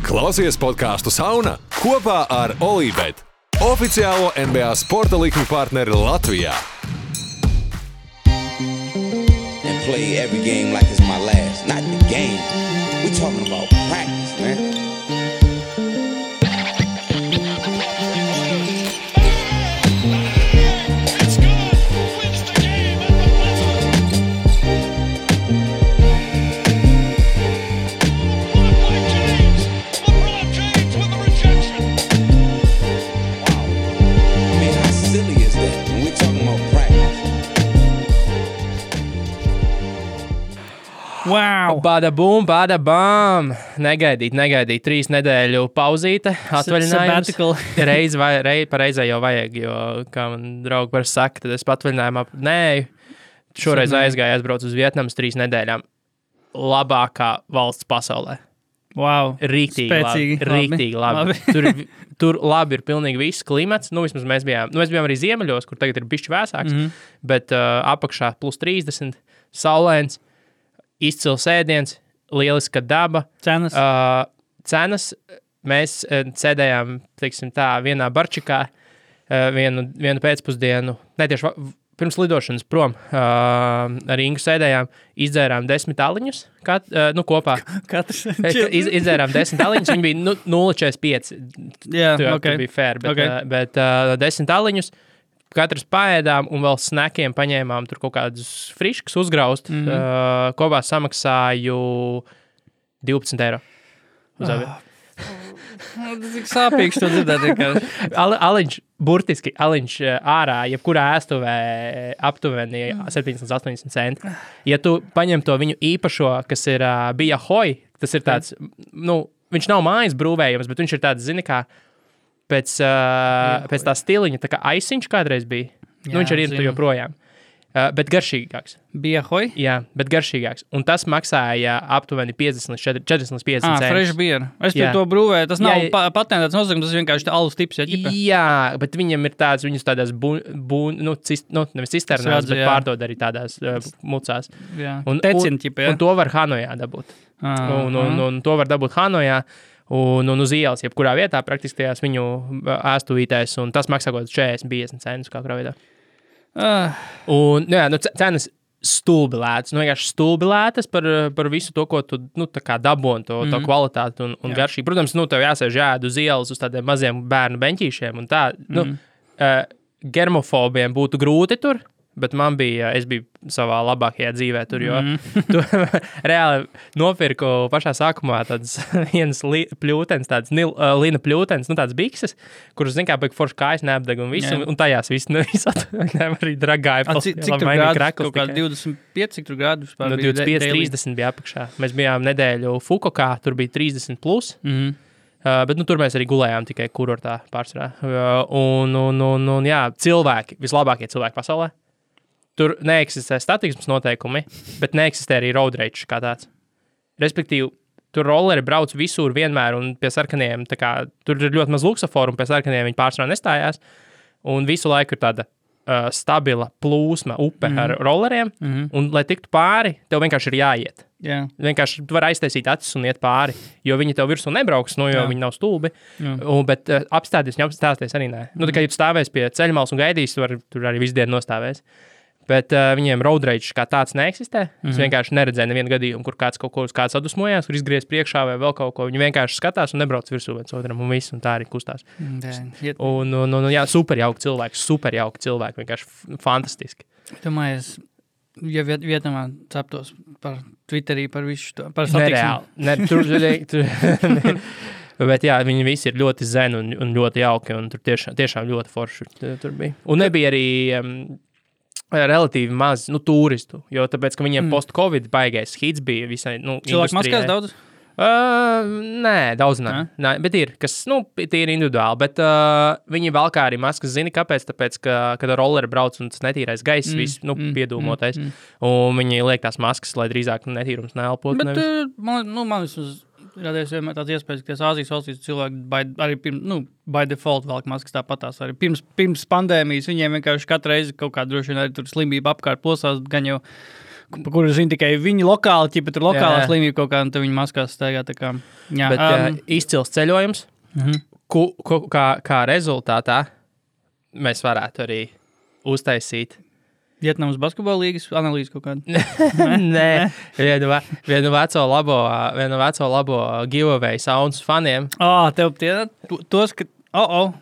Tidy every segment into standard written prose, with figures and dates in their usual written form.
Klausies podcastu Sauna kopā ar Olībet, oficiālo NBA sporta likmi partneri Latvijā. And play every game like it's my last. Not the game. We're talking about practice, man. Wow! Bada bum, bada bam! Negaidīt. 3 nedēļu pauzīte, atvaļinājums. Pareizai jau vajag, jo, kā man draugi var saka, tad es patvaļinājumā nēju. Šoreiz aizgāju, aizbraucu uz Vietnamas 3 nedēļām. Labākā valsts pasaulē. Wow! Rīktīgi labi. Tur labi ir pilnīgi viss klimats. Vismaz mēs bijām arī ziemeļos, kur tagad ir bišķi vēsāks, bet apakšā plus 30, saulēns. Izcils ēdiens, lieliska daba. Cenas. Mēs sēdējām, teiksim tā, vienā barčikā vienu pēcpusdienu, netieši pirms lidošanas prom, ar Ingu sēdējām, izdzērām 10 aliņus, kopā. Katrs. Izdzērām 10 aliņus, viņi bija 0,45. Jā, tur bija fair, bet 10 aliņus. Katrs paēdām un vēl snakiem paņēmām tur kaut kādus friškus uzgraust. Kopā samaksāju 12 eiro uz abi. Tas ir sāpīgs to dzirdēt. Aliņš ārā, jebkurā ēstuvē aptuveni 70-80 centi. Ja tu paņem to viņu īpašo, kas ir bija hoj, tas ir tāds, viņš nav mājas brūvējums, bet viņš ir tāds, zini kā, pēc tā stiliņa, tā kā aisiņš kādreiz bija. Viņš arī ir tu joprojām. Bet garšīgāks. Bija hoj? Jā, bet garšīgāks. Un tas maksāja aptuveni 40-50 centi. Fresh beer. Es pie to brūvēju. Tas nav patentēts nosaukums, tas ir vienkārši alus tips. Jā, bet viņam ir tāds, viņus tādās nevis cisternās, bet pārdod arī tādās mucās. Jā, un to var Hanojā dabūt. Un to var dabūt Hanojā. Un uz ielas, jebkurā vietā, praktiski tajās viņu ēstuvītēs, un tas maksā kaut 40-50 centus kā kurā vietā. Cenas stulbi lētas, vienkārši stulbi lētas par visu to, ko tu, tā kā daboni, to kvalitāti un garšību. Protams, tev jāsēž jāēd uz ielas uz tādiem maziem bērnu beņķīšiem, un tā, germofobiem būtu grūti tur, bet es biju savā labākajā dzīvē tur, jo tu reāli nopirku pašā sākumā tādas vienas pļūtens, tādas lina pļūtens, tādas bikses, kuras, zin kā, forši kājas neapdeg un visu, un tajās viss arī dragāja. Cik tur grādi? Kaut kā 25, cik tur grādi? 25-30 bija apakšā. Mēs bijām nedēļu Fukokā, tur bija 30 plus. Bet tur mēs arī gulējām tikai kurortā pārsvarā. Un cilvēki, vislabākie cilvēki pasaulē. Tur neeksistē statiksmes noteikumi, bet neeksistē arī road rage kā tāds. Respektīvi, tur rolleri brauc visur vienmēr un pie sarkaniem, tā kā tur ir ļoti maz luksaforu un pie sarkaniem viņi pārsvarā nestājās. Un visu laiku ir tāda stabila plūsma upe ar rolleriem, un lai tiktu pāri, tev vienkārši ir jāiet. Yeah. Vienkārši tu vari aiztaisīt acis un iet pāri, jo viņi tev virsū nebrauks, jo viņi nav stulbi. Bet apstāties arī nē. Tikai, ja tu stāvēs pie ceļmalas un gaidīs, tur arī visu dienu nostāvēs. Bet viņiem road rage kā tāds neeksistē. Es vienkārši neredzēju nevienu gadījumu, kur kāds kaut ko uz kāds sadusmojās, kur izgriez priekšā vai vēl kaut ko. Viņi vienkārši skatās un nebrauc virsū viens otram un viss, un tā arī kustās. Super jauki cilvēki, vienkārši fantastiski. Domāju, ja Vietnamā ceptos par Twitterī, par visu to, par satiksmi. Bet jā, viņi visi ir ļoti zen un ļoti jauki, un tur tiešām ļoti forši tur bija. Un nebija arī relatīvi maz turistu, jo tāpēc, ka viņiem post-covid baigais hits bija visai cilvēku maskās daudz? Nē, daudz nē, bet ir, kas, tie ir individuāli, bet viņi valkā arī maskas, zini, kāpēc, tāpēc, ka, kad rolleri brauc un tas netīrais gaiss, viss, piedūmotais, un viņi liek tās maskas, lai drīzāk netīrums neelpot. Bet, man vismaz radies vienmēr tāds iespējas, ka Āzijas valstīs cilvēki arī by default velk maskas tāpatās. Arī pirms pandēmijas viņiem vienkārši katru reizi kaut kā droši vien arī tur slimība apkārt plosās, gan jau kur zina tikai viņi lokāli, ķipa tur lokālā slimība kaut kā, un tad viņi maskās staigā tā kā. Jā, Bet izcils ceļojums, kā rezultātā mēs varētu arī uztaisīt. Vietnamas basketbola līgas analīze kaut kāda. Nē, vienu veco labo giveaway sounds faniem. Tev tos, ka... Oh,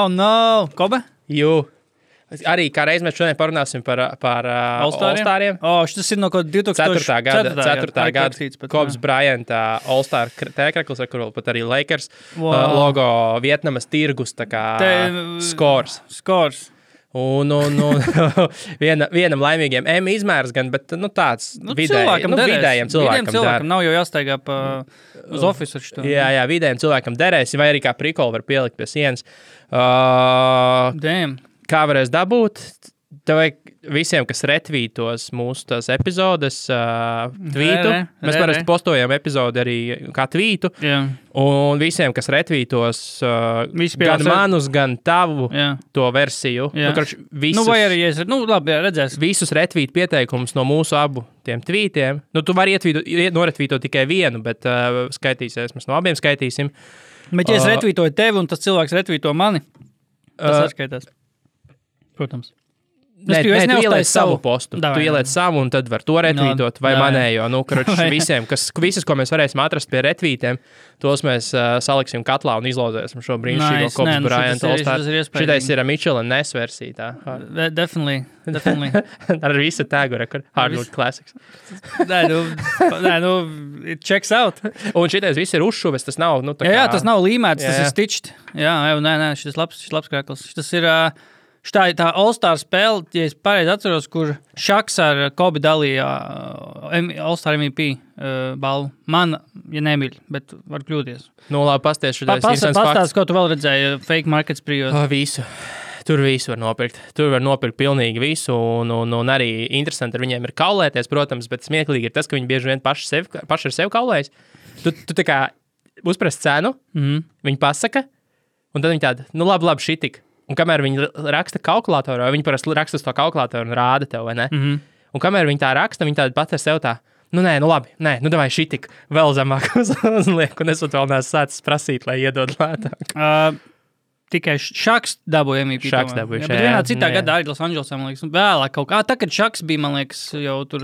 no! Kobe? Jū. Arī kā reiz mēs šodien parunāsim par All-Stariem. Šis ir no kaut 2004. gada Kobes Bryant All-Star tēkreklis, ar kuru pat arī Lakers logo Vietnamas tirgus, tā kā Scores. Un vienam laimīgiem izmērs gan, bet tāds vidējiem cilvēkam nav jau jāstaigā uz ofisu ar šito. Jā, vidējiem cilvēkam derēs, vai arī kā prikolu var pielikt pie sienas. Kā varēs dabūt? Tev vajag visiem, kas retvītos mūsu tās epizodes, tvītu. Mēs parasti postojam epizodi arī kā tvītu. Un visiem, kas retvītos gan manus, gan tavu to versiju. Visus, vai arī, labi, redzēs. Visus retvīt pieteikumus no mūsu abu tiem tvītiem. Tu vari noretvītot tikai vienu, bet skaitīsies. Mēs no abiem skaitīsim. Bet ja es retvītoju tevi un tas cilvēks retvīto mani, tas atskaitās. Protams. Nē, tu ieliec savu postu. Tu ieliec savu un tad var to retvītot vai manējo. Visas, ko mēs varēsim atrast pie retvītiem, tos mēs saliksim katlā un izlozēsim šo brīnišķīgo Kobes Bryant All-Star. Šitais ir Mitchell & Ness versija. Definitely. Ar visu tēgu rekordu. Hardwood Classics. It checks out. Un šitais viss ir uzšuves, tas nav, Jā, tas nav līmēts, tas ir stitched. Jā, šis labs krēkls. Šis ir... Tā All-Star spēle, ja es pareizi atceros, kur Šaks ar Kobe dalīja All-Star MVP balvu. Man, ja nemīļ, bet var kļūties. Labi, pasties šitais interesants fakts. Pastāst, ko tu vēl redzēji fake markets prijos. Visu. Tur visu var nopirkt. Tur var nopirkt pilnīgi visu, un arī interesanti ar viņiem ir kaulēties, protams, bet smieklīgi ir tas, ka viņi bieži vien paši ar sevi kaulējas. Tu tā kā uzprast cenu, viņi pasaka, un tad viņi tāda, labi, šitik. Un kamēr viņi raksta kalkulatorā, viņi parasti raksta uz to kalkulatoru un rāda tev, vai ne? Un kamēr viņi tā raksta, viņi tāda pat ar sev tā, davai šitik, vēl zemāk uzliek, un es vēl neesmu sācis prasīt, lai iedod lētāk. Tikai Šaks dabūja MVP. Šaks dabūja, bet vienā citā gadā arī Los Angelesā, man liekas, vēlāk kaut kā. Tā, kad Šaks bija, man liekas, jau tur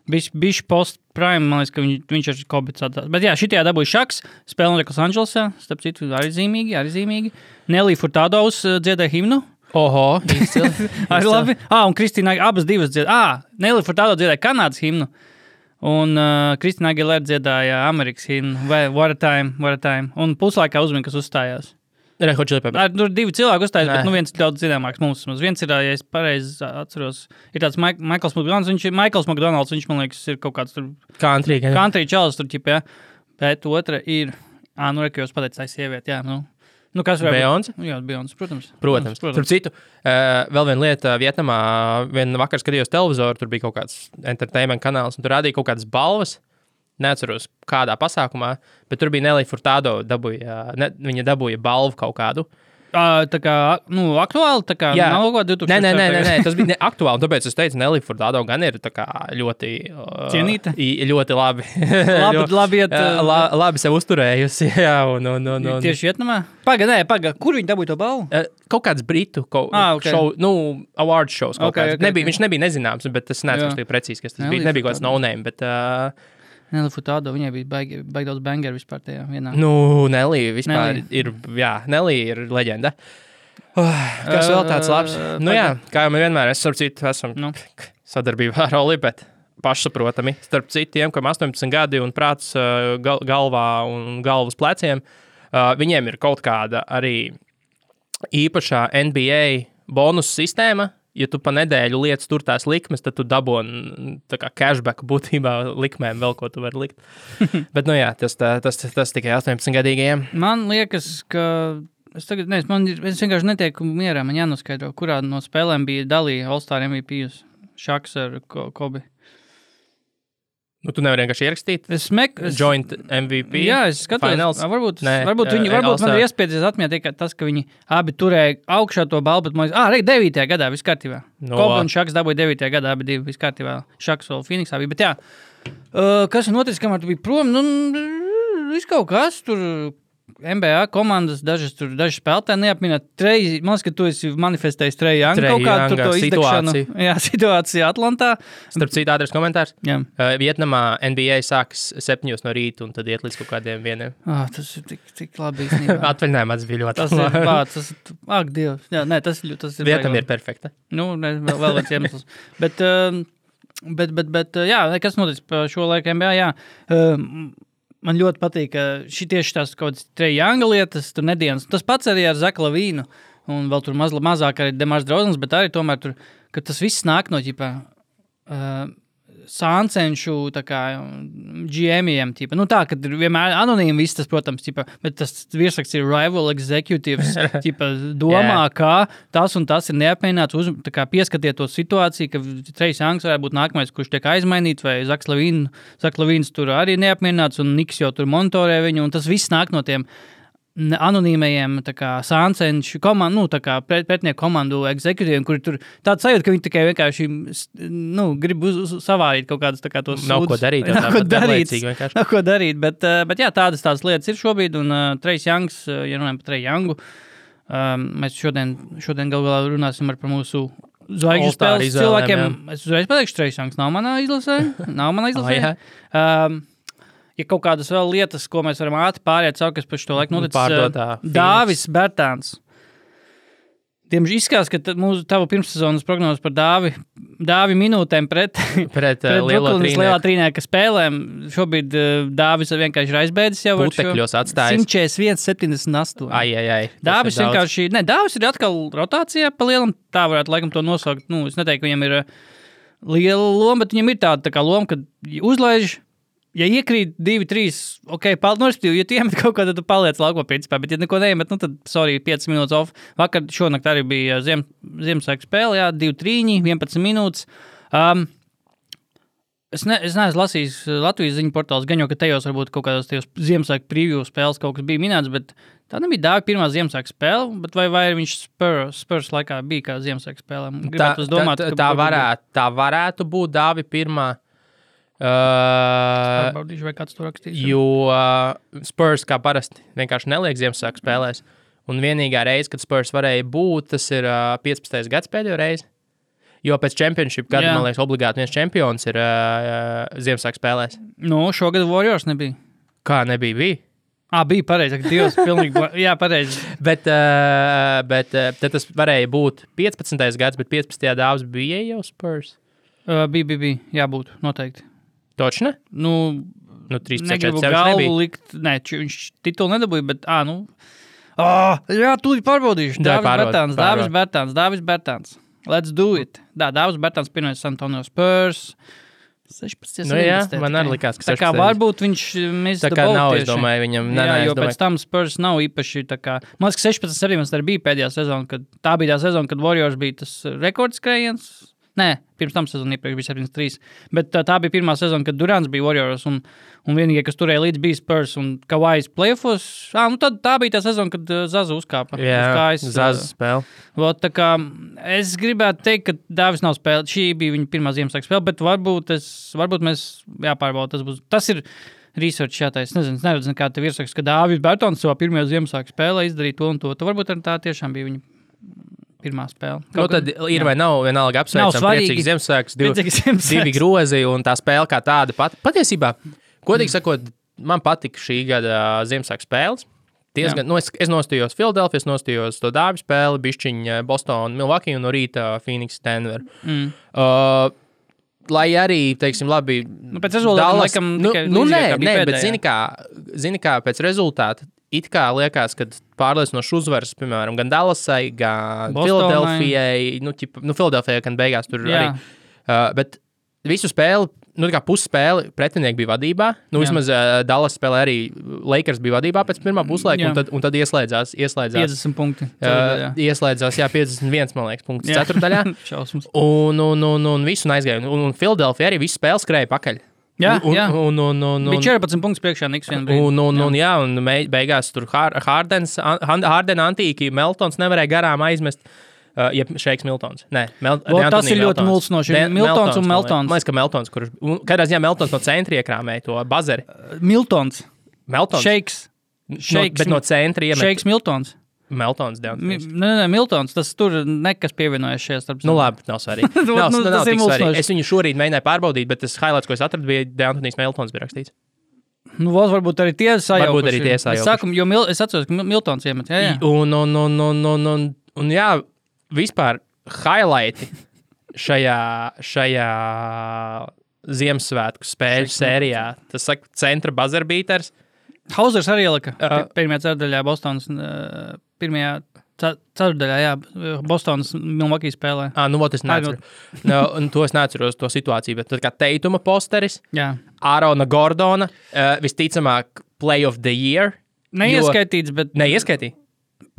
bišķi post-prime, man liekas, ka viņš ar Kobe sadās. Bet jā, šitajā dabūja Šaks, spēle notiek Los Angelesā, starp citu, arī zīmīgi. Nelly Furtado dziedāja himnu. Oho, arī labi. Un Kristīna abas divas dziedāja. Nelly Furtado dziedāja Kanādas himnu. Un Kristīna Aguilera dziedāja Amerikas himnu. Vai What a Time. Un puslaikā uzmina, kas uzstājās. Tur divi cilvēki uzstājās, bet viens ir daudz zināmāks mums. Viens ir, ja es pareizi atceros, ir tāds Michaels McDonalds, viņš, man liekas, ir kaut kāds tur country čalis tur, ķip, jā. Bet otra ir, ka jūs pateicat, tā sieviete, jā, kas varētu Beyoncé? Jā, Beyoncé, Protams. Tur citu, vēl viena lieta Vietnamā, vienu vakar skatījos televizoru, tur bija kaut kāds entertainment kanāls, un tur rādīja kaut kādas balvas. Neatceros, kādā pasākumā, bet tur bija Nelly Furtado, viņa dabūja balvu kaut kādu. Tā kā, aktuāli, tā kā nav kaut kā 2000. Nē, tas bija aktuāli, tāpēc es teicu, Nelly Furtado gan ir tā kā ļoti... Cienīta? Ļoti labi. Labi sev uzturējusi, jā, un... Tieši Vietnamā? Paga, kur viņi dabūja to balvu? Kaut kāds britu show, award shows kaut kāds. Viņš nebija nezināms, bet es neatceros precīzi, kas tas bija. Nebija kaut kāds no-name, bet... Nelly Furtado, viņai bija baigi daudz bangeru vispār tajā vienā. Nelly vispār ir, Nelly ir leģenda. Kas vēl tāds labs? Kā jau mēs vienmēr esam sadarbībā ar Oli, bet pašsaprotami. Starp citiem, kam 18 gadi un prāts galvā un galvas pleciem, viņiem ir kaut kāda arī īpašā NBA bonus sistēma. Ja tu pa nedēļu lietas tur tās likmes, tad tu daboni tā kā cashback būtībā likmēm vēl, ko tu vari likt. Bet, tas tikai 18-gadīgajiem. Man liekas, ka... Es vienkārši netieku mierā, man jānoskaidro, kurā no spēlēm bija dalīja All-Star MVP Šaks ar Kobe. Nu, tu nevari vienkārši ierakstīt. Joint MVP. Jā, es skatos. Finals. Varbūt man ir iespējas atmiet tas, ka viņi abi turēja augšā to balvu, bet man liekas, 9. gadā viss kārtībā. Kobe un Šaks dabūja 9. gadā, abi divi viss kārtībā. Šaks vēl Phoenixā bija, bet jā. Kas ir noticis, kamēr tu biji prom? Viss kaut kas tur. NBA komandas, daži spēlētāji neapminēt. Man liekas, ka tu esi manifestējis Trae Young kaut kādu to izdegšanu. Jā, situācija Atlantā. Starp citu, ātrs komentārs. Jā. Vietnamā NBA sākas 7 no rīta un tad iet līdz kaut kādiem 1. Tas ir tik labi īstenībā. Atvaļinājumā bija ļoti tas ir, ak, Dievs. Jā, nē, tas ir Vietnam ir perfekta. Nu, vēl viens iemesls. Bet jā, kas noticis pa šo laiku NBA, jā. Man ļoti patīk, ka tieši tās kaut kādas Trae Younga lietas, tur nedienas. Tas pats arī ar Zaku Lavīnu, un vēl tur mazāk arī Demars Drauzens, bet arī tomēr tur, ka tas viss nāk no sāncenšu GM-iem. Tā, ka ir vienmēr anonīmi viss tas, protams, bet tas virsraksts ir rival executives, domā, kā tas un tas ir neapmienāts, pieskatiet to situāciju, ka Trae Youngs varētu būt nākamais, kurš tiek aizmainīts, vai Zaks Lavīns tur arī neapmienāts, un Niks jau tur monitorē viņu, un tas viss nāk no tiem anonīmajiem sāncenšu komandu, pretnieku komandu executīviem, kuri tur tāds sajūta, ka viņi tikai vienkārši grib savārīt kaut kādas tos Nav ko darīt. Nav ko darīt, bet jā, tādas lietas ir šobrīd, un Trae Youngs, ja runājam par Trae Youngu, mēs šodien galvā runāsim par mūsu zvaigžņu spēles cilvēkiem. Es uzreiz pateikšu, Trae Youngs nav manā izlasē. Ja kaut kādas vēl lietas, ko mēs varam ātri pāriet caur, kas par šo laiku noticis, Dāvis Bertāns. Diemžēl izskatās, ka tavu pirmssezonas prognozes par Dāvi minūtēm pret lielā trīnieka spēlēm. Šobrīd Dāvis vienkārši ir aizbēdis jau ar šo 141-78. Dāvis vienkārši, Dāvis ir atkal rotācijā pa lielam, tā varētu laikam to nosaukt. Es neteiktu, ka viņam ir liela loma, bet viņam ir tāda loma, kad uzlaiž. Ja iekrīt 2-3, ja tu iemet kaut ko, tad tu paliec laukumā principā, bet ja neko neiemet, tad, 5 minūtes off. Vakar šonakt arī bija Ziemassvētku spēle, 2-3, 11 minūtes. Es neesmu lasījis Latvijas ziņu portāls, gan jau, ka tajos varbūt kaut kādos tajos Ziemassvētku preview spēles kaut kas bija minēts, bet tā nebija Dāvi pirmā Ziemassvētku spēle, bet vai viņš Spurs laikā bija kā Ziemassvētku spēlē? Tā varētu būt Dāvi pirmā. Pārbaudīšu, vai kāds to rakstīs. Jo Spurs kā parasti vienkārši neliek Ziemassvētku spēlēs. Un vienīgā reize, kad Spurs varēja būt, tas ir 15. gads pēdējo reizi. Jo pēc championship gada, man liekas, obligāti viens čempions ir Ziemassvētku spēlēs. Šogad Warriors nebija. Kā nebija? Bija? Bija pareizi, ka Dievs pilnīgi, jā, pareizi. bet tad tas varēja būt 15. gads, bet 15. Dāvs bija jau Spurs? Bija, jābūt, noteikti. Točne? 13. Negribu galvu likt, viņš titulu nedabūja, bet, jā, tūlīt pārbaudīšu. Dāvis Bertāns. Let's do it. Dāvis Bertāns pirmais San Antonio Spurs. 16. Man arī likās, ka 16. Tā kā varbūt viņš tā kā nav, es domāju, viņam. Jo pēc tam Spurs nav īpaši tā kā, man liekas, 16-17 arī bija pēdējā sezona, kad tā bija tā sezona, kad Warriors bija tas rekordskrējiens. Nē, pirms tam sezonu iepriekš bija 73. Bet tā bija pirmā sezona, kad Durants bija Warriors, un vienīgie, kas turēja līdz, bija Spurs un Kawais playoffos. Tad tā bija tā sezona, kad Zaza uzkāpa. Jā, Zaza spēle. Tā kā es gribētu teikt, ka Dāvis nav spēlēt. Šī bija viņa pirmā Ziemassvētku spēle, bet varbūt mēs jāpārbauda. Tas ir research jātais. Es neredzu nekā te virsraksts, ka Dāvis Bertons savā pirmajā Ziemassvētku spēlē izdarīja to un to. Varbūt tā tiešām bija viņa pirmā spēle. Tad ir vai nav vienalga apsveicam priecīgs Ziemassvētkus, divi grozi un tā spēle kā tāda patiesībā, godīgi sakot, man patika šī gada Ziemassvētku spēles. Es nostājos Philadelphia, nostājos to Dāvi spēli, bišķiņa Boston, Milwaukee un no rīta Phoenix, Denver. Lai arī, teiksim, labi, pēc rezultāta laikam bet zini kā pēc rezultāta it kā liekas, ka pārliecinošs uzvaras, piemēram, gan Dallasai, gan Filadelfijai, Filadelfijai, gan beigās tur arī. Bet visu spēli, kā pusspēli pretinieki bija vadībā, vismaz Dallas spēlē arī Lakers bija vadībā pēc pirmā puslaika, un tad ieslēdzās 50 punkti. Ieslēdzās, 51, man liekas, punkts ceturdaļā. Un visu aizgāja. Un Filadelfija arī visu spēli skrēja pakaļ. Jā, bija 14 punktus priekšā Niks vienu brīdi. Un beigās tur Hardena antīki Meltons nevarēja garām aizmest. Šeiks Miltons. Nē, tas ir ļoti mulsinoši. Miltons un Meltons. Man liekas, ka Meltons, kurš kādā ziņā Meltons no centra iekrāmēja to bazari. Miltons. Šeiks. Bet no centra iemet. Šeiks Miltons. Meltons. Nē, Miltons. Tas tur nekas pievienojas šajā starp. Nu labi, nav svarīgi. nav tik svarīgi. Es viņu šorīt mēģināju pārbaudīt, bet tas highlights, ko es atradu, bija Deantonijs Meltons bija rakstīts. Nu, varbūt arī tie sajaukuši. Varbūt arī tie sajaukuši. Es atceros, ka Miltons iemet. Jā. Un jā, vispār highlighti šajā Ziemassvētku spēļu sērijā. Tas saka, centra buzzerbeaters. Hausers arī ielika pirmajā ceturdaļā Bostonas, pirmajā ceturdaļā, jā, Bostonas Milwaukee spēlē. Es neatceru. To es neatceros, to situāciju, bet tad kā Teituma posteris, Ārona Gordona, visticamāk Play of the Year. Neieskaitīts, bet... Neieskaitīja?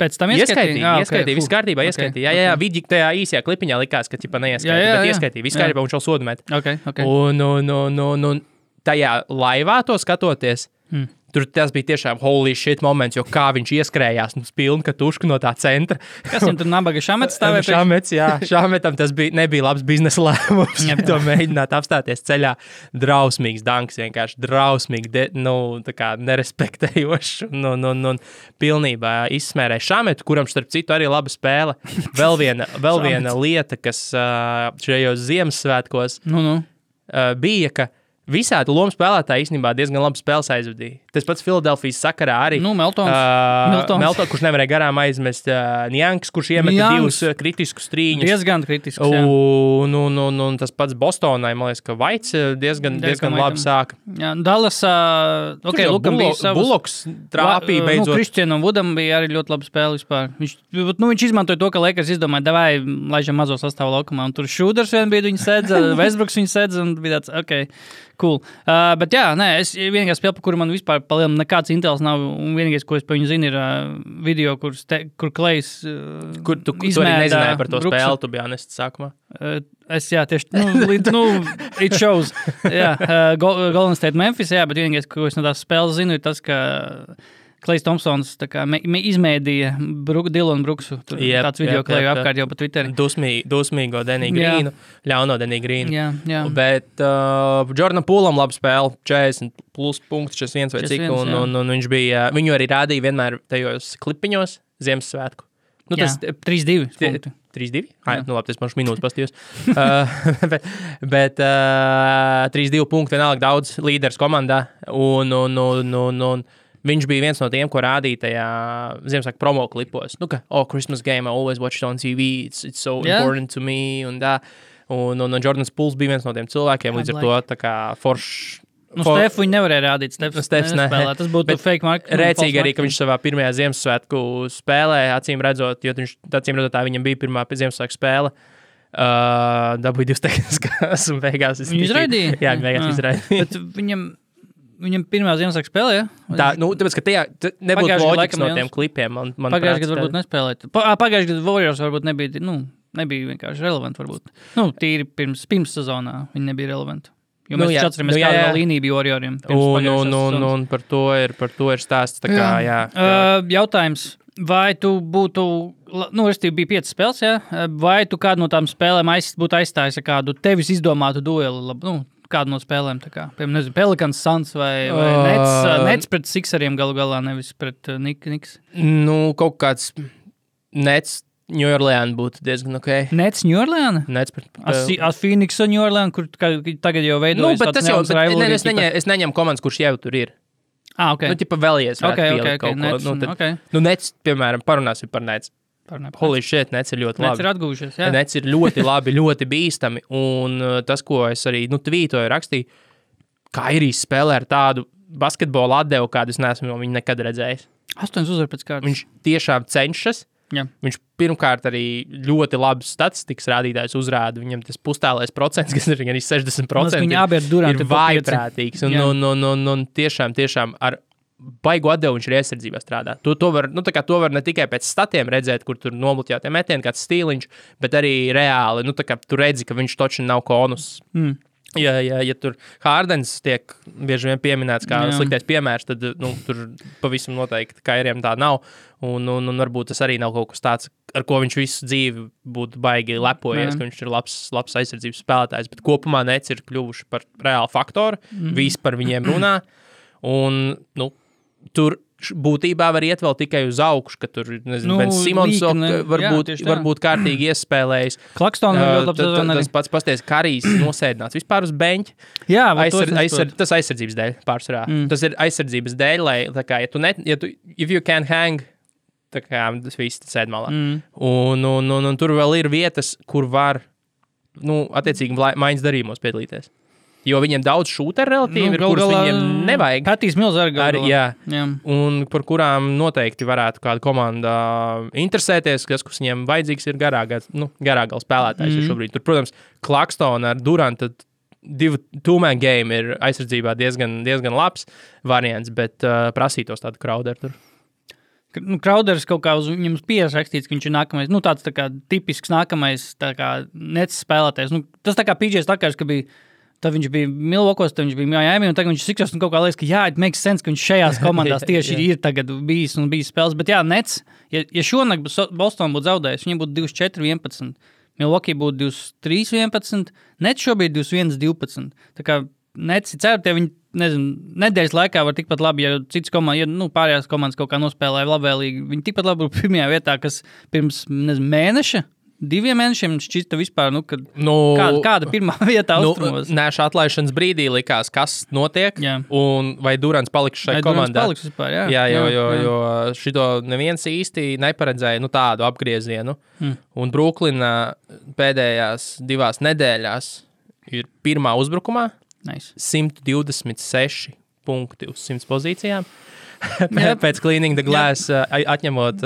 Pēc tam ieskaitīja, viss kārtībā, ieskaitīja. Jā, vidi tajā īsajā klipiņā likās, ka ķipa neieskaitīja, bet ieskaitīja, viss kārtībā, un šo sodu met. Okay. Un tajā laivā to skatoties, tur tas bija tiešām holy shit moments, jo kā viņš ieskrējās un pilnu katušku no tā centra. Kas viņam tur nabaga Šamets stāvēja? Šamets, jā. Šametam tas nebija labs biznesa lēmums. To mēģināt apstāties ceļā. Drausmīgs danks, vienkārši drausmīgi, tā kā nerespektējošs un pilnībā izsmērēja Šametu, kuram starp citu arī laba spēle. Vēl viena lieta, kas šajos Ziemassvētkos bija, ka visādi lomu spēlētāji īstenībā diezgan labi spēles aizvadīja. Tas pats Filadelfijas sakarā arī. Meltons. Kurš nevarēja garām aizmest Njanks, kurš iemeta 2 kritiskus trīņus. Diezgan kritiskus, jā. Un tas pats Bostonai, man liekas, ka Vaits diezgan labi sāka. Jā, Dallas, Lukam bija savus... Buloks trāpīja beidzot. Kristianam Vudam bija arī ļoti laba spēle vispār. Viņš izmantoja to, ka Lakers izdomāja, davai, laižam mazo sastāvu laukumā. Un tur Šūders vien bija, viņi sedza, Westbrooks viņi sedza, un bija tāds, cool. Bet jā, es vienīgā spēle, par kuru man vispār palielam nekāds intels nav, un vienīgais, ko es par viņu zinu, ir video, kur Klejs kur tu arī nezināji par to spēli, tu biji honests sākumā? It shows. Jā, Golden State Memphis, jā, bet vienīgais, ko es no tās spēles zinu, ir tas, ka Klejs Thompsons izmēdīja Dylanu Brooksu. Tāds video Kleju apkārt jau pa Twitteri. Dusmīgo Denny Greenu, ļauno Denny Greenu. Jā. Bet Jordan Poolam laba spēle, 40 plus punkts, 41 vai cik, un viņš bija, viņu arī rādīja vienmēr tajos klipiņos Ziemassvētku. Tas 3-2 punkti. 3-2? Labi, tas man minūtes pastījos. bet 3-2 punkti vienalga daudz līderis komandā, un viņš bija viens no tiem, ko rādīja tajā Ziemassvētku promo klipos. Christmas game, I always watch it on TV, it's so important to me, un Jordans Pools bija viens no tiem cilvēkiem, līdz ar to tā kā foršs. Stefu viņi nevarēja rādīt, Stefs nespēlē, tas būtu fake marketing. Rēcīgi arī, ka viņš savā pirmajā Ziemassvētku spēlē, acīm redzot, jo tā viņam bija pirmā Ziemassvētku spēle, dabūja 2 tehniskās un beigās. Viņu izraidīja? Jā, beigās izraidīja. Bet viņam pirmā Ziemassvētku spēlē, ja? Tāpēc, ka tajā nebūtu loģikas no tiem klipiem. Pagājušajā gadā varbūt nespēlēt. Pagājušajā gadā Warriors varbūt nebija vienkārši relevanti varbūt. Tīri pirms sezonā viņi nebija relevanti. Jo mēs atceramies, kāda līnija bija Warrioriem. Un par to ir stāsts. Tā kā, jā. Jautājums, vai tu būtu, restīvi bija 5 spēles, jā? Vai tu kādu no tām spēlēm būtu aizstājis ar kādu tevis izdomātu dueli, kādu no spēlēm, tā kā, piemēram, Pelicans, Suns vai Nets pret Sixeriem galu galā, nevis pret Knicks? Kaut kāds Nets New Orleans būtu diezgan ok. Nets New Orleans? Nets pret... Phoenix un New Orleans, kur tagad jau veidojas tāds neums rivalry. Es neņemu komandas, kurš jau tur ir. Ok. Vēlies varētu pielikt kaut ko. Nets, piemēram, parunāsim par Nets. Holy shit, Nets ir ļoti labi. Nets ir atgūjušies, jā. Nets ir ļoti labi, ļoti bīstami, un tas, ko es arī, tvītoju, rakstīju, Kairijs spēlē ar tādu basketbolu atdevu, kādu es neesmu no viņa nekad redzējis. 8 uzvar pēc kārtas. Viņš tiešām cenšas. Jā. Viņš pirmkārt arī ļoti labas statistikas rādītājs uzrāda. Viņam tas pustālais procents, kas ir arī 60%, ir vājprātīgs. Un tiešām ar baigu atdevu viņš ir iesardzībā strādā. To var ne tikai pēc statiem redzēt, kur tur nomutjātie metieni, kāds stīliņš, bet arī reāli. Tu redzi, ka viņš toči nav konus. Ja tur Hārdens tiek bieži vien pieminēts kā sliktais piemērs, tad tur pavisam noteikti Kairiem tā nav. Un varbūt tas arī nav kaut kas tāds, ar ko viņš visu dzīvi būtu baigi lepojies, ka viņš ir labs aizsardzības spēlētājs. Bet kopumā Nets ir kļuvuši par reālu faktoru, visi par viņiem runā. Un tur būtībā var iet vēl tikai uz augšu, ka tur, nezinu, Ben Simons varbūt kārtīgi iespēlējis. Claxton tas pats pasties, Karijs nosēdināts vispār uz beņķa. Jā, tas aizsardzības dēļ pārsvarā. Tas ir aizsardzības dēļ, lai, tā kā, if you can hang, tā kā tas viss sēd malā. Un tur vēl ir vietas, kur var, attiecīgi maiņas darījumos piedalīties. Jo viņiem daudz šūteru relatīvi ir, kurus viņiem nevajag. Patīs Mills arī. Jā. Un par kurām noteikti varētu kāda komanda interesēties, kas viņiem vajadzīgs ir garāgals spēlētājs šobrīd. Tur, protams, Claxtona ar Duranta two-man game ir aizsardzībā diezgan labs variants, bet prasītos tādu Crowderu tur. Crowders kaut kā uz viņam pieras rakstīts, ka viņš ir nākamais, tāds tā kā tipisks nākamais tā kā Nets spēlētājs. Tas tā kā PJ Tuckers, ka bija tad viņš bija Milwaukee's, tad viņš bija Miami, un tagad viņš Sixers, un kaut kā liekas, ka it makes sense, ka viņš šajās komandās tieši ir tagad bijis spēles. Bet jā, Nets, ja šonakt Boston būtu zaudējis, viņiem būtu 24-11, Milwaukee būtu 23-11, Nets šobrīd 21-12. Tā kā Nets ir certi, ja viņi, nedēļas laikā var tikpat labi, ja citas komandas, pārējās komandas kaut kā nospēlēja labvēlīgi, viņi tikpat labi būtu pirmajā vietā, kas pirms, mēneša, 2 mēnešiem šķista vispār, kāda pirmā vietā austrumos. Nēša atlaišanas brīdī likās, kas notiek, un vai Durants paliks šai komandā. Paliks vispār, jo šito neviens īsti neparedzēja tādu apgriezienu. Un Bruklina pēdējās 2 nedēļās ir pirmā uzbrukumā, 126 punkti uz 100 pozīcijām. Pēc Cleaning the Glass atņemot.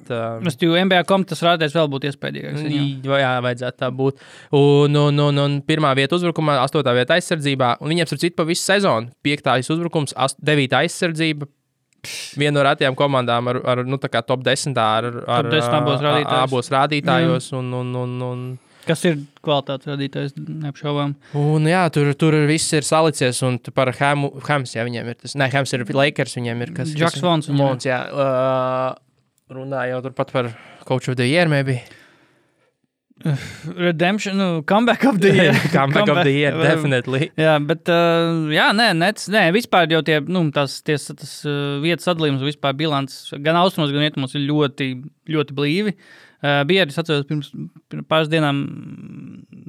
NBA tas rādēs vēl būtu iespējīgāks. Jā, vajadzētu tā būt. Un pirmā vieta uzbrukumā, 8. vieta aizsardzībā, un viņiem ir cita pa visu sezonu. 5. uzbrukums, 9. aizsardzība. Viena no retajām komandām ar tā kā top 10 ar abos rādītājos. Kas ir kvalitātes radītājs, neapšaubām. Un jā, tur viss ir salicies, un par Hams, jā, viņiem ir tas. Nē, Hams ir Lakers, viņiem ir kas. Jacks Vons. Jā. Runāja jau turpat par Coach of the Year, maybe. Redemption, comeback of the year. Comeback of the year, definitely. Jā, bet, Nets, vispār jau tas vietas sadalījums, vispār bilants, gan austrumos, gan rietumos ir ļoti, ļoti blīvi. Bija arī, es atceros, pirms pāris dienām,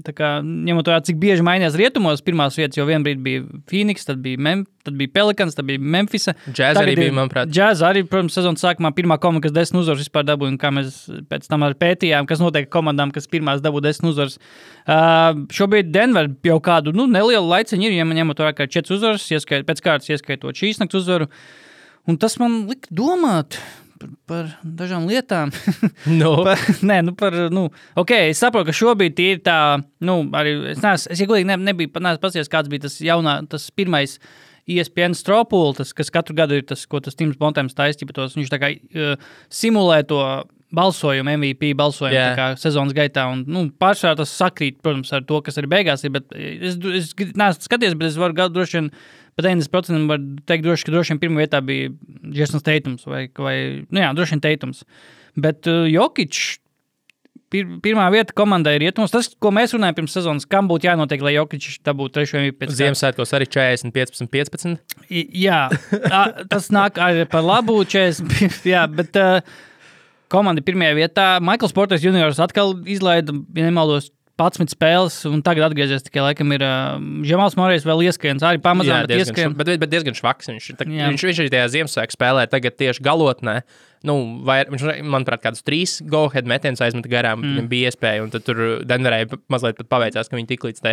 tā kā, ņemot vērā, cik bieži mainījās rietumos pirmās vietas, jo vienbrīd bija Phoenix, tad bija Pelicans, tad bija Memphisa. Jazz arī bija, manuprāt. Jazz arī, protams, sezonas sākumā pirmā komanda, kas 10 uzvaras vispār dabūja, un kā mēs pēc tam arī pētījām, kas notiek komandām, kas pirmās dabū 10 uzvaras. Šobrīd Denver jau kādu, nelielu laiciņu ir, ja man ņemot vērā, kā 4 uzvaras, pēc kārtas ieskaitot šīs nakts uzvaru, un tas man lika domāt par dažām lietām. Es saprotu, ka šobrīd ir tā, arī, es godīgi nebiju paskatījies, kāds bija tas pirmais ESPN Stropul, kas katru gadu ir tas, ko tas Tims Bontems taistīja, viņš tā kā simulē to balsojumu, MVP balsojumu tā kā sezonas gaitā, un pārsvarā tas sakrīt, protams, ar to, kas arī beigās ir, bet es neesmu skaties, bet es varu droši vien pat 90% var teikt, ka droši vien pirmā vietā bija Jasons Tatums vai droši vien Tatums. Bet Jokic pirmā vieta komandai ir rietumos. Tas, ko mēs runājam pirms sezonas, kam būtu jānotiek, lai Jokic dabūtu 3. MVP pēc Ziemassvētkos arī 40-15. Jā, tas nāk arī par labu 40, jā, bet komanda pirmajā vietā. Michaels Porter Juniors atkal izlaida, ja nemaldos, 11 spēles, un tagad atgriezies tikai laikam ir Žemāls Morejs vēl ieskains, arī pamazām, bet ieskien. Bet diezgan švaks viņš arī tajā Ziemassvētku spēlē tagad tieši galotnē. Viņš, manuprāt, kādus 3 go-ahead metienus aizmeta garām, viņam bija iespēja, un tad tur Denverei mazliet pat paveicās, ka viņi tik līdz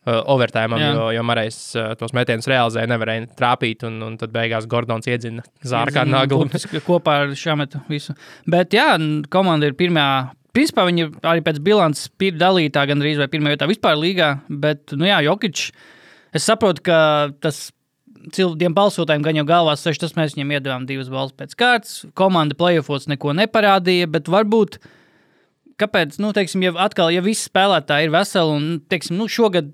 overtājumam, jo Morejs tos metienus realizēja, nevarēja trāpīt, un tad beigās Gordons iedzina zārkā naglu. Kopā ar šametu visu. Bet jā, komanda ir pirmā. Principā viņi arī pēc bilances ir dalītā gan arī vai pirmā vietā vispār līgā, bet, Jokic, es saprotu, ka tas tiem balsotājiem gan jau galvās seš, tas mēs viņiem iedevām 2 balvas pēc kārtas, komanda playoffos neko neparādīja, bet varbūt kāpēc, teiksim, ja visi spēlētāji ir veseli un, teiksim, šogad,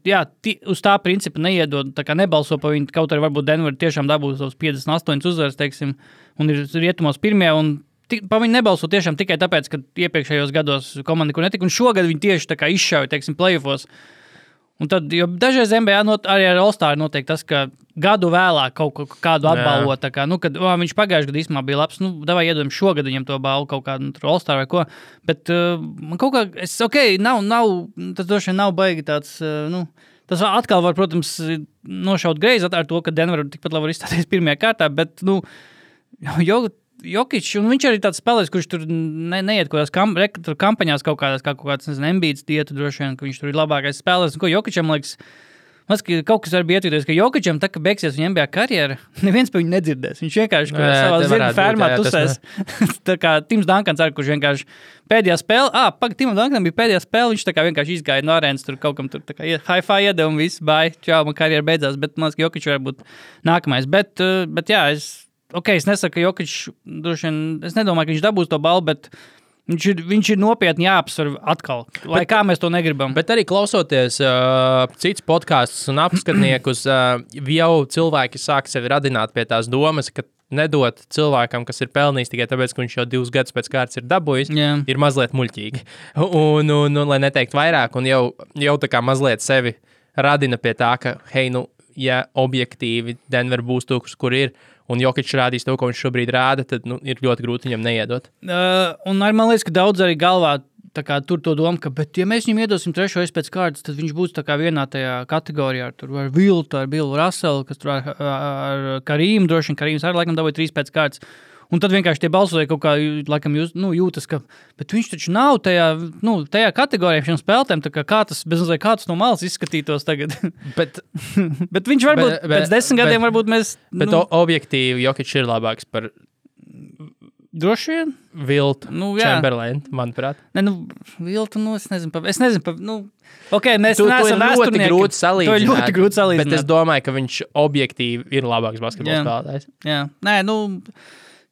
uz tā principa neiedod, tā kā nebalso pa viņu, kaut arī varbūt Denver tiešām dabūs tos 58 uzvaras, teiksim, un ir rietumos pirmie, un pa viņu nebalso tiešām tikai tāpēc, ka iepriekšējos gados komanda, kur netika, un šogad viņi tieši tā kā izšauja, teiksim, playoffos. Un tad, jo dažreiz NBA arī ar All-Star notiek tas, ka gadu vēlāk kādu atbalvo, tā kā, kad viņš pagājuši gadu īstenībā bija labs, davai iedodam šogad viņam to balvu kaut kādu All-Star vai ko, bet man kaut kā, nav, tas droši vien nav baigi tāds, tas atkal var, protams, nošaut greizi ar to, ka Denver tikpat labi var izstāties pirmajā kārtā, bet, Jokić, un viņš arī tāds spēlēs, kurš tur neiet kaut kādās kampaņās kaut kāds, Embiids dietu droši vien, ka viņš tur ir labākais spēlēs, un ko Jokićam liekas, kaut kas var bija ietvīties, ka Jokićam tā, ka beigsies viņa NBA karjera, neviens pa viņu nedzirdēs. Viņš vienkārši savā zirga fermā tusēs. Tā kā Tims Dankans arī, kurš vienkārši pēdējā spēle, Timam Dankanam bija pēdējā spēle, viņš tā kā vienkārši izgāja no arēnas, tur kaut kam tur tā kā hi-fi iedeva un viss, bye, čau, man karjera beidzās, bet man liekas, ka Jokić var būt nākamais. Bet jā, es nesaku, ka Jokić, droši vien, es nedomāju, ka viņš dabūs to balvu, bet viņš ir nopietni jāapsver atkal, lai kā mēs to negribam. Bet arī klausoties cits podkastus un apskatniekus, jau cilvēki sāk sevi radināt pie tās domas, ka nedot cilvēkam, kas ir pelnījis tikai tāpēc, ka viņš jau 2 gadus pēc kārtas ir dabūjis, ir mazliet muļķīgi. Un lai neteikt vairāk, un jau tā kā mazliet sevi radina pie tā, ka, hei, ja objektīvi Denver būs tūks, kur ir, un Jokić rādīs to, ko viņš šobrīd rāda, tad ir ļoti grūti viņam neiedot. Un arī man liekas, ka daudz arī galvā tā kā tur to domu, ka, bet ja mēs viņam iedosim 3. pēc kārtas, tad viņš būs tā kā vienā tajā kategorijā, tur ar Viltu, ar Billu Russellu, kas tur ar Karīmu, droši vien Karīms arī laikam dabūja 3 pēc kārtas. Un tad vienkārši tie balsoja kaut kā, laikam, jūtas, ka, bet viņš taču nav tajā kategorijā šiem spēlētēm, tā kā tas no malas izskatītos tagad. Bet viņš varbūt pēc 10 gadiem varbūt mēs... Bet objektīvi Jokić ir labāks par... Droši vien? Viltu, Chamberlain, manuprāt. Viltu, es nezinu, ok, mēs neesam vēsturnieki. To ir ļoti grūti salīdzināt. Bet es domāju, ka viņš objektīvi ir labāks basketbola spēlētājs. Jā,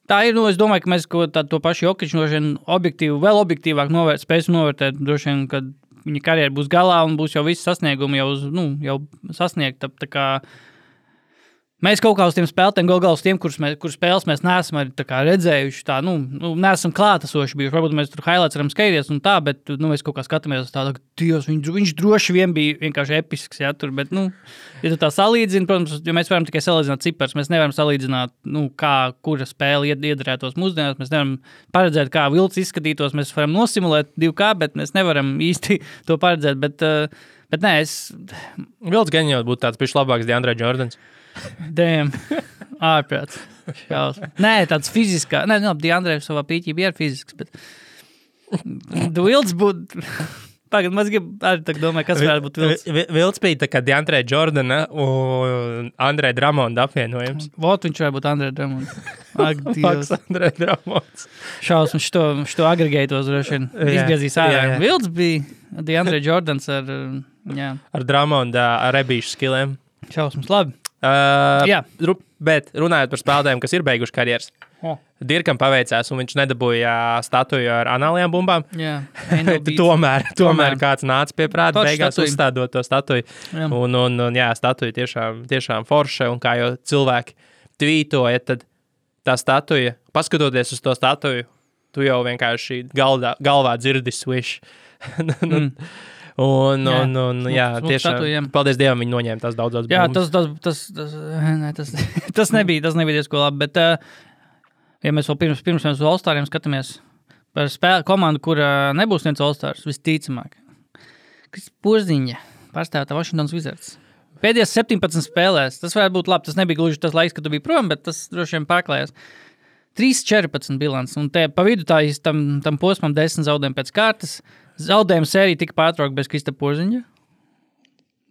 tā ir, es domāju, ka mēs to pašu Jokiću vēl objektīvāk spēsim novērtēt, droši vien, kad viņa karjera būs galā un būs jau visi sasniegumi jau sasniegta. Tā kā mēs kaut kā uz tiem spēlētēm, galā uz tiem, kur spēles mēs neesam arī tā kā redzējuši, neesam klātesoši bijuši. Varbūt mēs tur highlights varam skatīties un tā, bet mēs kaut kā skatāmies uz tādu, ka Dievs, viņš droši vien bija vienkārši episks, tur, bet, ja tu tā salīdzini, protams, jo mēs varam tikai salīdzināt cipars, mēs nevaram salīdzināt, kura spēle iedarētos mūsdienās, mēs nevaram paredzēt, kā Vilts izskatītos, mēs varam nosimulēt 2K, bet mēs nevaram īsti to paredzēt, bet nē, Vilts gan jau būtu tāds pišķi labāks DeAndre Jordans. Damn, ārprāts. Nē, tāds fiziskā. Nē, DeAndre savā pīķībā ir fizisks, bet Vilts būtu... Pagad, mēs arī tā domāju, kas varētu būt Vilts. Vilts bija tā kā DeAndre Jordana un Andre Drummonda apvienojums. Vot viņš varētu būt Andre Drummonds. Ak, Dievs. Andre Drummonds. Šausmas, šito agregētos droši vien izgriezīs ārā. Vilts bija DeAndre Jordans ar Drummonda rebīšu skilēm. Šausmas, labi. Bet runājot par spēlētājiem, kas ir beiguši karjeras, Dirkam paveicās, un viņš nedabūja statuju ar anālajām bumbām. Tomēr kāds nāca pie prāta, beigās uzstādot to statuju. Un statuja tiešām forša, un kā jau cilvēki tvītoja, tad tā statuja, paskatoties uz to statuju, tu jau vienkārši galvā dzirdi swish. Tiešām, paldies Dievam, viņi noņēma tās daudzās bumbas. Jā, tas nebija diezko labi, bet ja mēs vēl pirms mēs uz All-Stariem skatāmies par komandu, kura nebūs viens All-Stars, visticamāk. Kas Porziņa pārstāvā Washington Wizards. Pēdējās 17 spēlēs, tas varētu būt labi, tas nebija gluži tas laiks, kad tu biji prom, bet tas droši vien pārklājās. 3-14 bilants, un te pa vidu tam posmam 10 zaudējumi pēc kārtas. Zaudējuma sērija tika pārtraukta bez Krista Porziņa?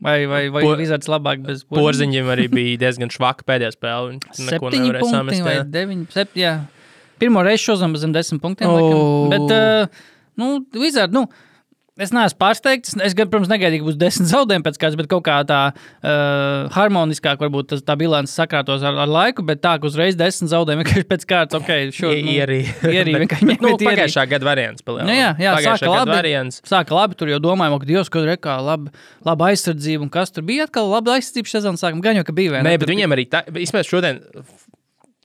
Vai Wizards labāk bez Porziņa? Porziņam arī bija diezgan švaka pēdējā spēle. 7 punkti vai 9, jā. Pirmo reizi šozam zem 10 punktiem. Bet, Wizard, Es neesmu pārsteigts. Es, protams, negaidīju, ka būs 10 zaudējumi pēc kāds, bet kaut kā tā harmoniskāk varbūt tā bilance sakrātos ar laiku, bet tā, ka uzreiz 10 zaudējumi vienkārši pēc kārtas, Ierī vienkārši pagājušā gada variants. Sāka labi, tur jau domājām, ka Dievs, kad rekā laba aizsardzība, un kas tur bija atkal laba aizsardzība sezonas sākuma, gan jau, ka bija. Nē, bet viņiem arī, vismaz šodien,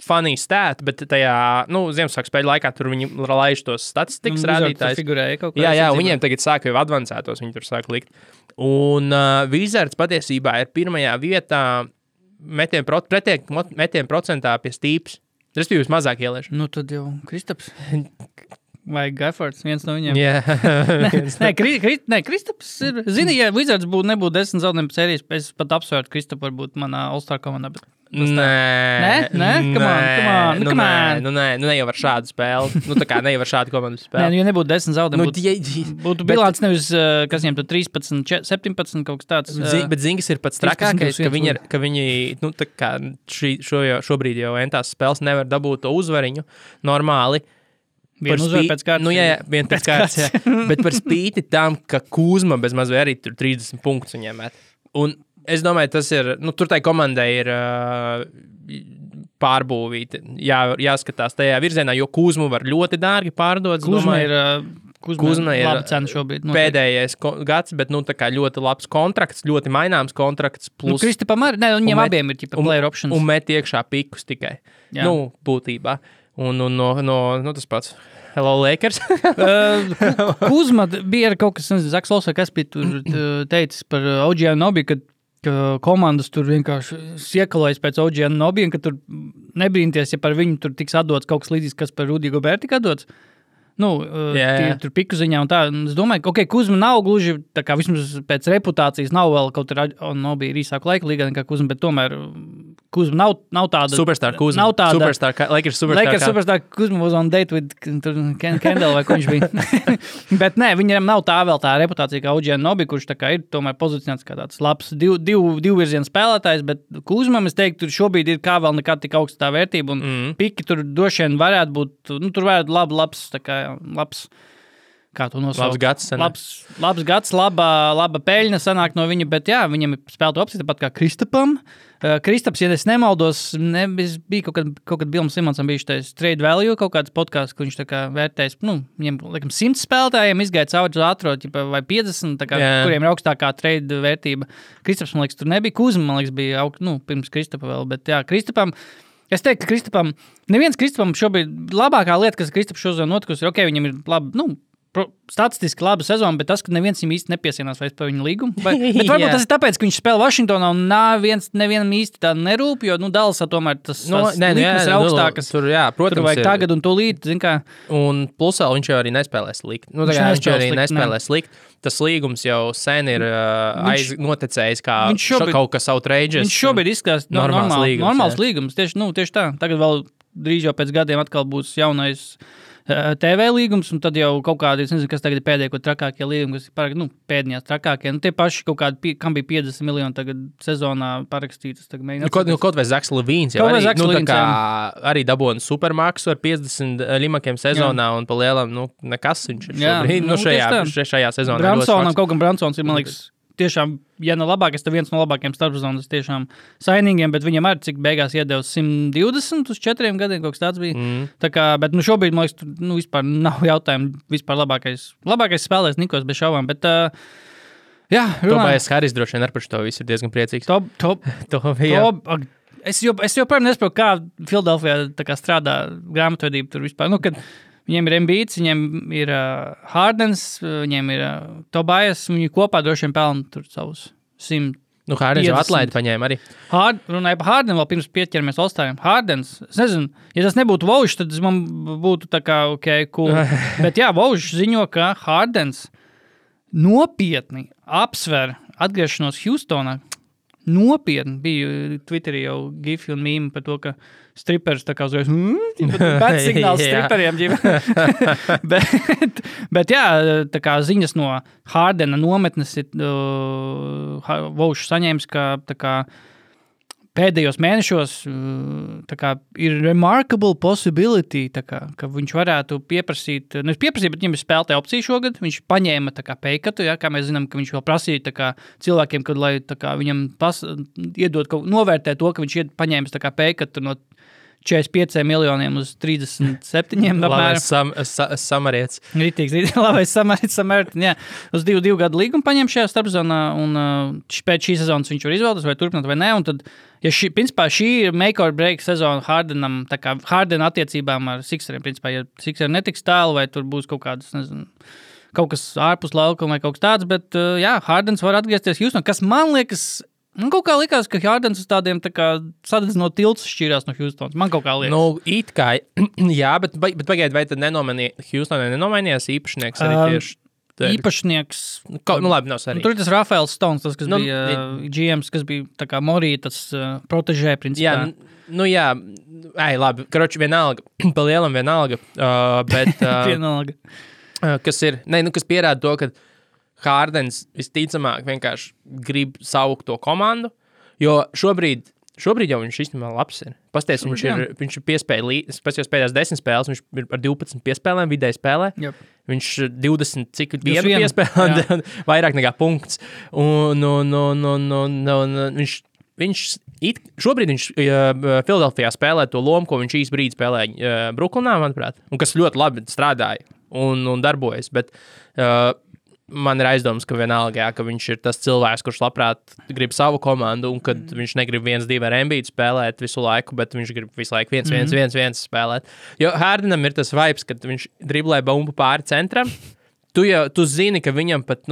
funny stat, bet tajā, Ziemassvētku spēļu laikā tur viņi laiž tos statistikas rādītājus. Jā, viņiem tagad sāka jau advancētos, viņi tur sāka likt. Un Wizards patiesībā ir pirmajā vietā metienu procentā pie Stīps. Respektīvi, mazāk ieliešu. Nu, tad jau Kristaps. Vai Gaifords, viens no viņiem. Kristaps ir, zini, ja Wizards nebūtu 10 zaudējumu sērijas, es pat apsvērtu Kristapu varbūt manā All-Star komandā, bet Nē, come on. Ne jau ar šādu spēli. Tā kā ne jau ar šādu komandu spēli. Nē, ja nebūtu 10 zaudējumu, būtu bilants nevis, kas viņiem tur 13, 17 kaut kas tāds. Bet Zingas ir pats trakākais, ka viņi, tā kā šobrīd jau entās spēles nevar dabūt to uzvariņu normāli. Vienu uzvar pēc kārtas. Vien pēc kārtas, bet par spīti tam, ka Kuzma bez maz vai arī tur 30 punktus viņiem met. Un es domāju, tas ir, tur tai komandai ir pārbūvīti, jāskatās tajā virzienā, jo Kuzmu var ļoti dārgi pārdot. Kuzma ir laba cena šobrīd. Pēdējais gads, bet tā kā ļoti labs kontrakts, ļoti maināms kontrakts. Plus, Kristapam arī, viņiem abiem ir player options. Un met iekšā pikus tikai, būtībā. Un tas pats. Hello, Lakers. Kuzma bija kaut kas, Zaks Losa, kas bija tur teicis par OG Anunoby, ka komandas tur vienkārši iekalojas pēc OG Anunoby, un ka tur nebrīnties, ja par viņu tur tiks atdots kaut kas līdzīgs, kas par Rudy Gobert tika atdots. Tur piku ziņā un tā. Es domāju, ka Kuzma nav gluži, tā kā vismaz pēc reputācijas nav vēl kaut Anunoby ir īsāku laiku līgā nekā Kuzma, bet tomēr Kuzma nav tāda... Superstar Kuzma. Nav tāda... Lakers superstar. Kuzma was on date with Kendall vai ko viņš bija. Bet nē, viņam nav tā vēl tā reputācija kā OG Anunoby, kurš tā kā ir tomēr pozicionēts kā tāds labs divu virzienu spēlētājs, bet Kuzmam, es teiktu, tur šobrīd ir kā vēl nekad tik augsta tā vērtība, un piki tur droši vien varētu būt, tur varētu labs, tā kā labs, kā to nosaukt? Labs gads, laba peļņa sanāk no viņa, bet jā, viņam ir spēlēta opcija, tāpat kā Kristapam. Kristaps, ja es nemaldos, bija kaut kad Billam Simonsam bija šitais trade value, kaut kāds podcasts, kur viņš tā kā vērtējis, viņiem, laikam, 100 spēlētājiem izgāja cauri ātrot, vai 50, tā kā, kuriem ir augstākā trade vērtība. Kristaps, man liekas, tur nebija. Kuzma, man liekas, bija pirms Kristapa vēl, bet jā, Kristapam, es teiktu, ka Kristapam, neviens Kristapam šobrīd labākā lieta, kas Kristaps šodien notikusi, ir, viņi ir labi, statistiski laba sezona, bet tas, ka neviens viņam īsti nepiesienās vairs par viņu līgumu. Bet varbūt tas ir tāpēc, ka viņš spēlē Vašingtonā un nevienam īsti tā nerūp, jo, Dallasā tomēr tas likmes ir augstākas. Tur vajag tagad un tūlīt, zin kā. Un plusā viņš jau arī nespēlē slikt. Viņš jau arī nespēlē slikt. Tas līgums jau sen ir noticējis kā kaut kas outrageous. Viņš šobrīd izskatās normāls līgums. Tieši tā. Tagad vēl drīz jau pēc gadiem atkal būs jaunais TV līgums, un tad jau kaut kādi, es nezinu, kas tagad ir pēdējo trakākie līgumi, kas ir pēdējās trakākie. Tie paši kaut kādi, kam bija 50 miljoni tagad sezonā parakstītas. Kaut vai Zaks Levīns jau arī dabūna supermaksu ar 50 limakiem sezonā, un pa lielam, nekas viņš ir šobrīd, šajā sezonā. Bransonam, kaut gan Bransons ir, man liekas, tiešām, ja ne labākais, tad viens no labākajiem starpzonas tiešām sainīgiem, bet viņam arī cik beigās iedeva 120 uz 4 gadiem, kaut kas tāds bija. Tā kā, bet šobrīd, man liekas, vispār nav jautājumu, vispār labākais spēlēs Nikos bez šaubām, bet jā, Tobijas Haris droši vien ar par šo visu ir diezgan priecīgs. Es joprojām nesaprotu, kā Filadelfijā tā kā strādā grāmatvedība tur vispār, kad viņiem ir Embiids, viņiem ir Hardens, viņiem ir Tobijas, viņi kopā droši vien pelna tur savus 100. Hardens jau atlaidi paņēma arī. Runāja par Hardenu vēl pirms pieķeramies All-Stariem. Hardens, es nezinu, ja tas nebūtu Vaužs, tad man būtu tā kā, cool. Bet jā, Vaužs ziņo, ka Hardens nopietni apsver atgriešanos Houstonā. Nopietni bija Twitterī jau gifi un mīmi par to, ka stripers tā kā uzreiz pēc signāls striperiem. bet jā, tā kā ziņas no Hardena nometnes ir Vaušs saņēmis, ka tā kā pēdējos mēnešos tā kā, ir remarkable possibility, tā kā, ka viņš varētu pieprasīt, bet viņam ir spēlētāja opcija šogad, viņš paņēma tā kā peikatu, ja, kā mēs zinām, ka viņš vēl prasīja tā kā, cilvēkiem, kad, lai tā kā, viņam iedod, novērtē to, ka viņš paņēmis tā kā peikatu no 45 miljoniem uz 37 apmēram. Samarietis. Ritīgs, labais samarietis, jā. Uz 2 gadu līgumu paņem šajā starpzonā, un pēc šī sezonas viņš var izvēlēties, vai turpināt vai ne, un tad, ja principā šī ir make or break sezona Hardenam, tā kā Harden attiecībām ar Sixeriem, principā, ja Sixeri netiks tālu, vai tur būs kaut kādas, nezinu, kaut kas ārpus laukuma vai kaut kas tāds, bet, jā, Hardens var atgriezties Houston, kas man liekas, kaut kā likās, ka Hardens uz tādiem tā kā sadedzinot tilts šķīrās no Houstons. Man kaut kā liekas. Nu, it kā, jā, bet pagaid, vai tad Houstonai nenomainījās īpašnieks arī tieši? Īpašnieks. Labi, nav svarīgi. Tur ir tas Rafaels Stones, tas, kas bija GMs, kas bija tā kā Morija, tas protežē, principā. Jā, labi, karoči vienalga, pa lielam vienalga, bet... vienalga. Kas ir, kas pierāda to, ka Hardens visticamāk vienkārši grib saukt to komandu, jo šobrīd jau viņš īstenībā labs ir. Pasties, viņš ir piespējis pēdējās 10 spēles, viņš ir ar 12 piespēlēm, vidēji spēlē. Yep. Viņš 20, cik vienu piespēlē, vairāk nekā punkts. Un šobrīd viņš Filadelfijā spēlē to lomu, ko viņš īsti brīdi spēlēja Brooklynā, manuprāt, un kas ļoti labi strādāja un darbojas, bet... Man ir aizdoms, ka vienalga, ka viņš ir tas cilvēks, kurš labprāt grib savu komandu, un kad viņš negrib 1-2 ar Embiidu spēlēt visu laiku, bet viņš grib visu laiku 1-1 spēlēt. Jo Hardenam ir tas vibes, kad viņš driblē bumbu pāri centram. Tu zini, ka viņam pat,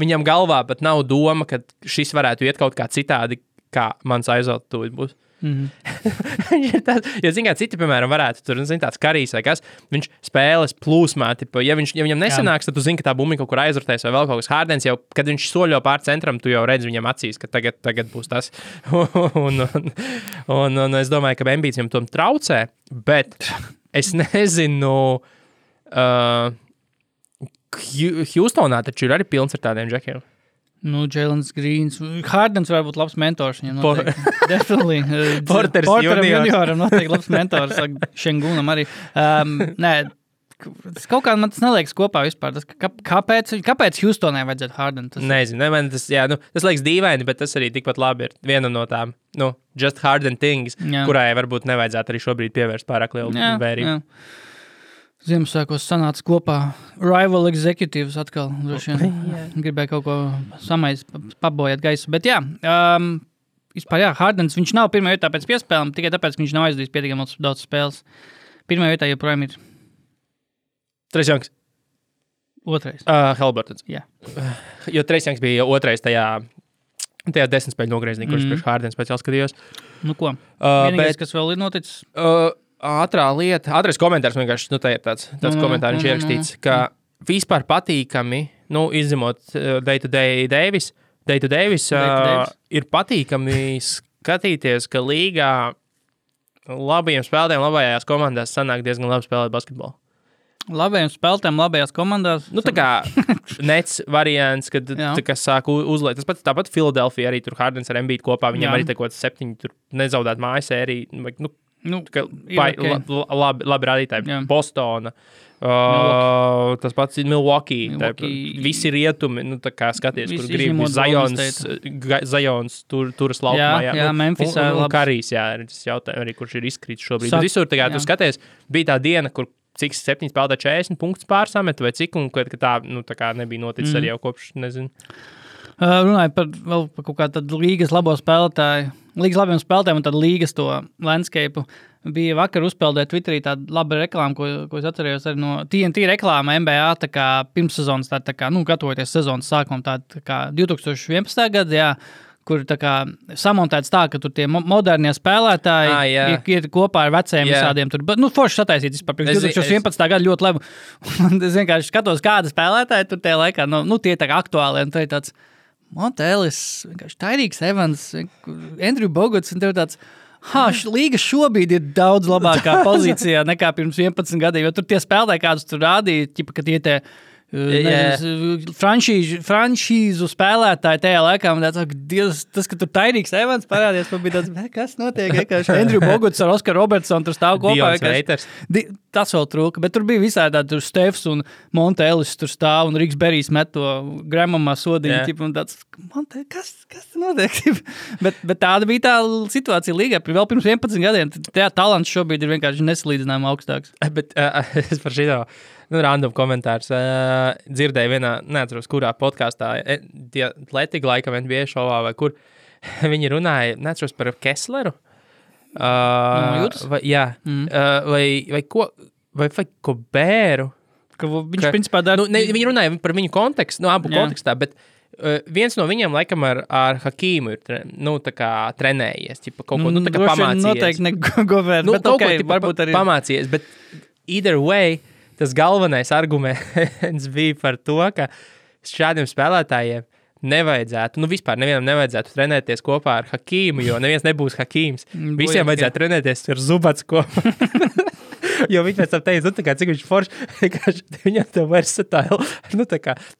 viņam galvā pat nav doma, ka šis varētu iet kaut kā citādi, kā mans aizot tūlīt būs. Jo, zin kā, citi, piemēram, varētu tur, tāds Karijs vai kas, viņš spēles plūsmā, ja viņam nesanāks, tad tu zini, ka tā bumba kaut kur aizrotēs vai vēl kaut kas. Hardens jau, kad viņš soļo pār centram, tu jau redzi viņam acīs, ka tagad būs tas. un es domāju, ka Embiids viņam tom traucē, bet es nezinu, Houstonā taču ir arī pilns ar tādiem džekiem. Jailens Greens. Hardens var būt labs mentors viņam noteikti. Definitely. Porteram junioram noteikti labs mentors. Šengunam arī. Nē, kaut kā man tas neliekas kopā vispār. Kāpēc Houstonai vajadzētu Harden? Nezinu. Tas liekas dīvaini, bet tas arī tikpat labi ir viena no tām, just Harden things, kurai varbūt nevajadzētu arī šobrīd pievērst pārāk lielu vērību. Ziemassvētkos sanāca kopā rival executives atkal. Gribēja kaut ko pabojāt gaisu. Bet vispār Hardens, viņš nav pirmā vietā pēc piespēlēm, tikai tāpēc, ka viņš nav aizdījis pietiekami daudz spēles. Pirmā vietā joprojām ir... Trace Youngs. Otrais. Haliburtons. Jā. Jo Trace Youngs bija otrais tajā 10 spēļu nogriezienī, kurš priekš Hardens pēc jau skatījos. Ko? Vienīgais, kas vēl ir noticis... Ātrais komentārs vienkārši, tā ir tāds komentārs, viņš ierakstīts, ka vispār patīkami, izņemot Day-to-Day Davis, ir patīkami skatīties, ka līgā labajiem spēlētājiem labajās komandās sanāk diezgan labi spēlēt basketbolu. Labajiem spēlētājiem labajās komandās? Tā kā nets variants, kad sāk uzliet. Tāpat Philadelphia arī tur Hardens ar Embiidu kopā, viņam arī kaut 7 tur nezaudēt mājas sēriju, labi rādītāji. Bostona, tas pats ir Milwaukee. Visi rietumi, skaties, kur grib Zions turas laukumā. Jā, Memphisā. Un Karijs, tas jautājums arī, kurš ir izkrīts šobrīd. Bet visur, tu skaties, bija tā diena, kur cik 7 spēlētā 40 punktus pārsamet, vai cik, un ka tā nebija noticis arī jau kopš, nezinu. Runāju par kaut kā tādu līgas labo spēlētāju, līgas labiem spēlētājiem un tādu līgas to landscape. Bija vakar uzpeldēt Twitterī tāda laba reklāma, ko es atcerējos arī no TNT reklāma NBA, tā kā pirmssezonas, tā kā, gatavoties sezonas sākumam, tā kā 2011. Gada, kur tā kā samontēts tā, ka tur tie modernie spēlētāji ir kopā ar vecajiem visādiem tur. Forši sataisīt vispār. 2011. Gada ļoti labi. Es vienkārši skatos, kāda spēlētāji tur tie laikā, tie tā kā aktuāli, un tā ir tāds Montelis, vienkārši Tyrīks Evans, Andrew Boguts, un tev tāds, līga šobrīd ir daudz labākā pozīcijā nekā pirms 11 gadiem, jo tur tie spēlētāji, kādus tur rādīja, ka tie franšīzu spēlētāji tajā laikā. Man tāds, Dievs, tas, ka tur Tairīks Evans parādījās, man bija tāds, kas notiek? Andrew Boguts ar Oskaru Robertsonu tur stāv kopā. Dions Reiters. Tas vēl trūka, bet tur bija visādi tādi, tur Stefs un Monte Ellis tur stāv un Riks Berijs met to Gramamā sodiņu. Un tāds, Monte, kas notiek? bet tāda bija tā situācija līgā. Vēl pirms 11 gadiem. Tā talants šobrīd ir vienkārši nesalīdzinājumi augstāks. Bet es par šito... random komentārs. Dzirdēju vienā, neatceros, kurā podkāstā, tie Atletico laikam NBA šovā vai kur, viņi runāja, neatceros par Kessleru. Vai ko Bēru. Viņš principā dara... Viņi runāja par viņu kontekstu, abu kontekstā, bet viens no viņiem laikam ar Hakīmu ir tā kā trenējies, ķipa, kaut ko, tā kā pamācījies. Noteikti negovērt, bet kaut okay, ko, varbūt arī... Pamācījies, bet either way, tas galvenais arguments bija par to, ka šādiem spēlētājiem nevajadzētu, vispār nevienam nevajadzētu trenēties kopā ar Hakīmu, jo neviens nebūs Hakīms. Visiem vajadzētu trenēties ar Zubats kopā. Jo viņi pēc tam teica, cik viņš forši, viņam tev versatile,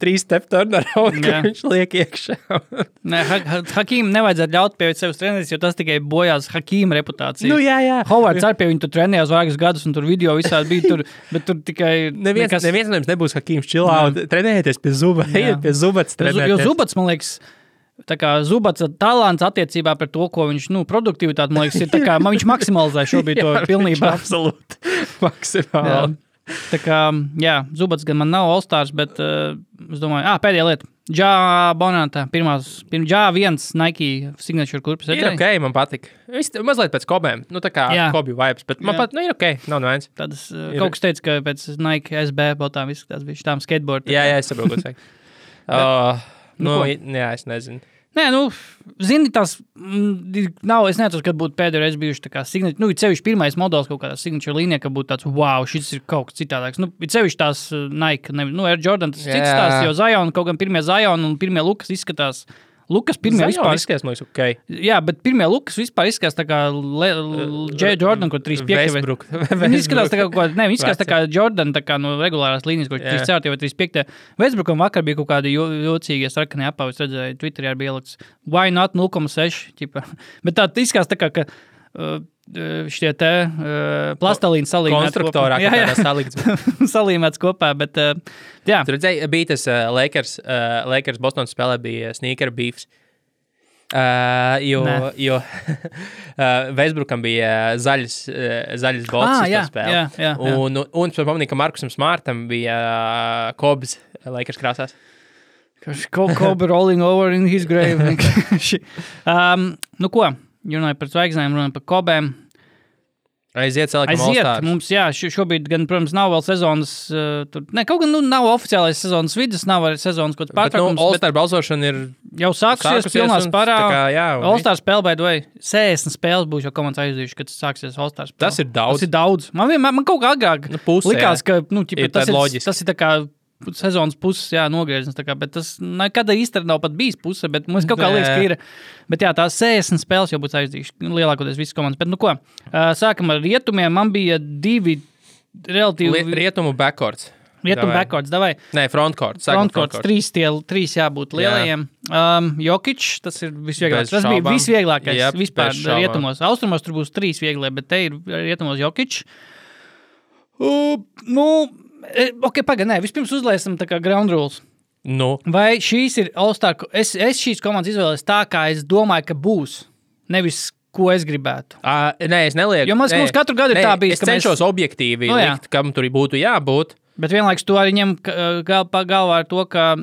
3 step turnaround, ka viņš liek iekšā. Hakīmu nevajadzētu ļaut pie sevis trenēties, jo tas tikai bojās Hakīma reputāciju. Jā. Hovards arī pie viņu tur trenējās vairākus gadus, un tur video visādi bija tur, bet tur tikai... Neviens no jums nebūs Hakīms čilā, un trenējieties pie Zubats trenēties. Jo Zubats, man liekas, tā kā Zubats talants attiecībā par to, ko viņš, produktivitāti, man liekas, ir tā kā, viņš maksimalizē šobrīd to pilnībā. Absolūti. Maksimāli. Tā kā, Zubats gan man nav All-Stars, bet es domāju, pēdējā lieta. Jā, Bonantā, Jā, viens Nike signature kurpes. Ir ok, man patika. Mazliet pēc Kobēm, tā kā Kobi vibes, bet man pat, ir ok, nav neviens. Tādas, kaut kas teica, ka pēc Nike SB botām viss tās bija šitām skateboard. Jā, es saprotu, ko saka. Es nezinu. Nē, zini, tās nav, es neatceros, kad būtu pēdējo reizi bijuši tā kā signature, ir sevišķi pirmais modelis kaut kādā signature līnijā, ka būtu tāds, wow, šis ir kaut kas citādāks. Ir sevišķi tās Nike, Air Jordan, tas cits tās, jo Zion, kaut gan pirmie Zion un pirmie Lukas izskatās, pirmie vispār izskatās, man liekas, ok. Jā, bet pirmie Lukas vispār izskatās tā kā J. Jordan, ko 3.5. Viņi izskatās tā kā, viņi izskatās tā kā Jordan, tā kā no regulārās līnijas, ko 3.4. vai 3.5. Westbrookam vakar bija kaut kādi jocīgie sarkanie apavi, es redzēju, Twitterī arī bija ielikts, why not 0.6, ķipa. Bet tā izskatās tā kā, ka šitie te plastelīni salīmēts konstruktorā, kopā. Jā. Salikts. Salīmēts kopā, bet jā. Tur redzēja, bija tas Lakers Bostonas spēlē bija sneaker beefs. Jo Westbrookam bija zaļas bolts spēlē. Jā. Un es pamanīju, ka Markusam Smartam bija Kobs Lakers krāsās. Kobe rolling over in his grave. Ko? Runāja par zvaigznēm, runāja par Kobēm. Aiziet, All-Stars. Mums, šobrīd gan, protams, nav vēl sezonas, kaut gan nav oficiālais sezonas vidus, nav arī sezonas kaut pārtraukums. Bet All-Star balsošana ir jau sākusies pilnā spārā. All-Star spēle, by the way, 60 spēles būs jau komandas aizdījuši, kad sāksies All-Star spēle. Tas ir daudz. Tas ir daudz. Man kaut kā agrāk likās, ka tas ir tā kā sezonas puses, nogrieziens, bet tas nekad īsti nav pat bijis puse, bet mums kaut kā liekas, ka ir. Bet tās 60 spēles jau būs aizdījuši, lielākoties visas komandas. Bet ko, sākam ar rietumiem, man bija 2 relatīvi... Rietumu backcourts. Backcourts, davai. Nē, frontcourts. Frontcourts, 3 jābūt lielajiem. Jokic, tas ir visvieglākais. Tas bija visvieglākais vispār rietumos. Austrumos tur būs 3 vieglie, bet te ir rietumos Jokic. Vispirms uzlēsim tā kā ground rules. Vai šīs ir All-Star? Es šīs komandas izvēlēs tā, kā es domāju, ka būs. Nevis, ko es gribētu. Nē, es nelieku. Jo mums katru gadu ir tā bijis. Es cenšos objektīvi likt, kam tur būtu jābūt. Bet vienlaikus tu arī ņem galvā ar to, ka,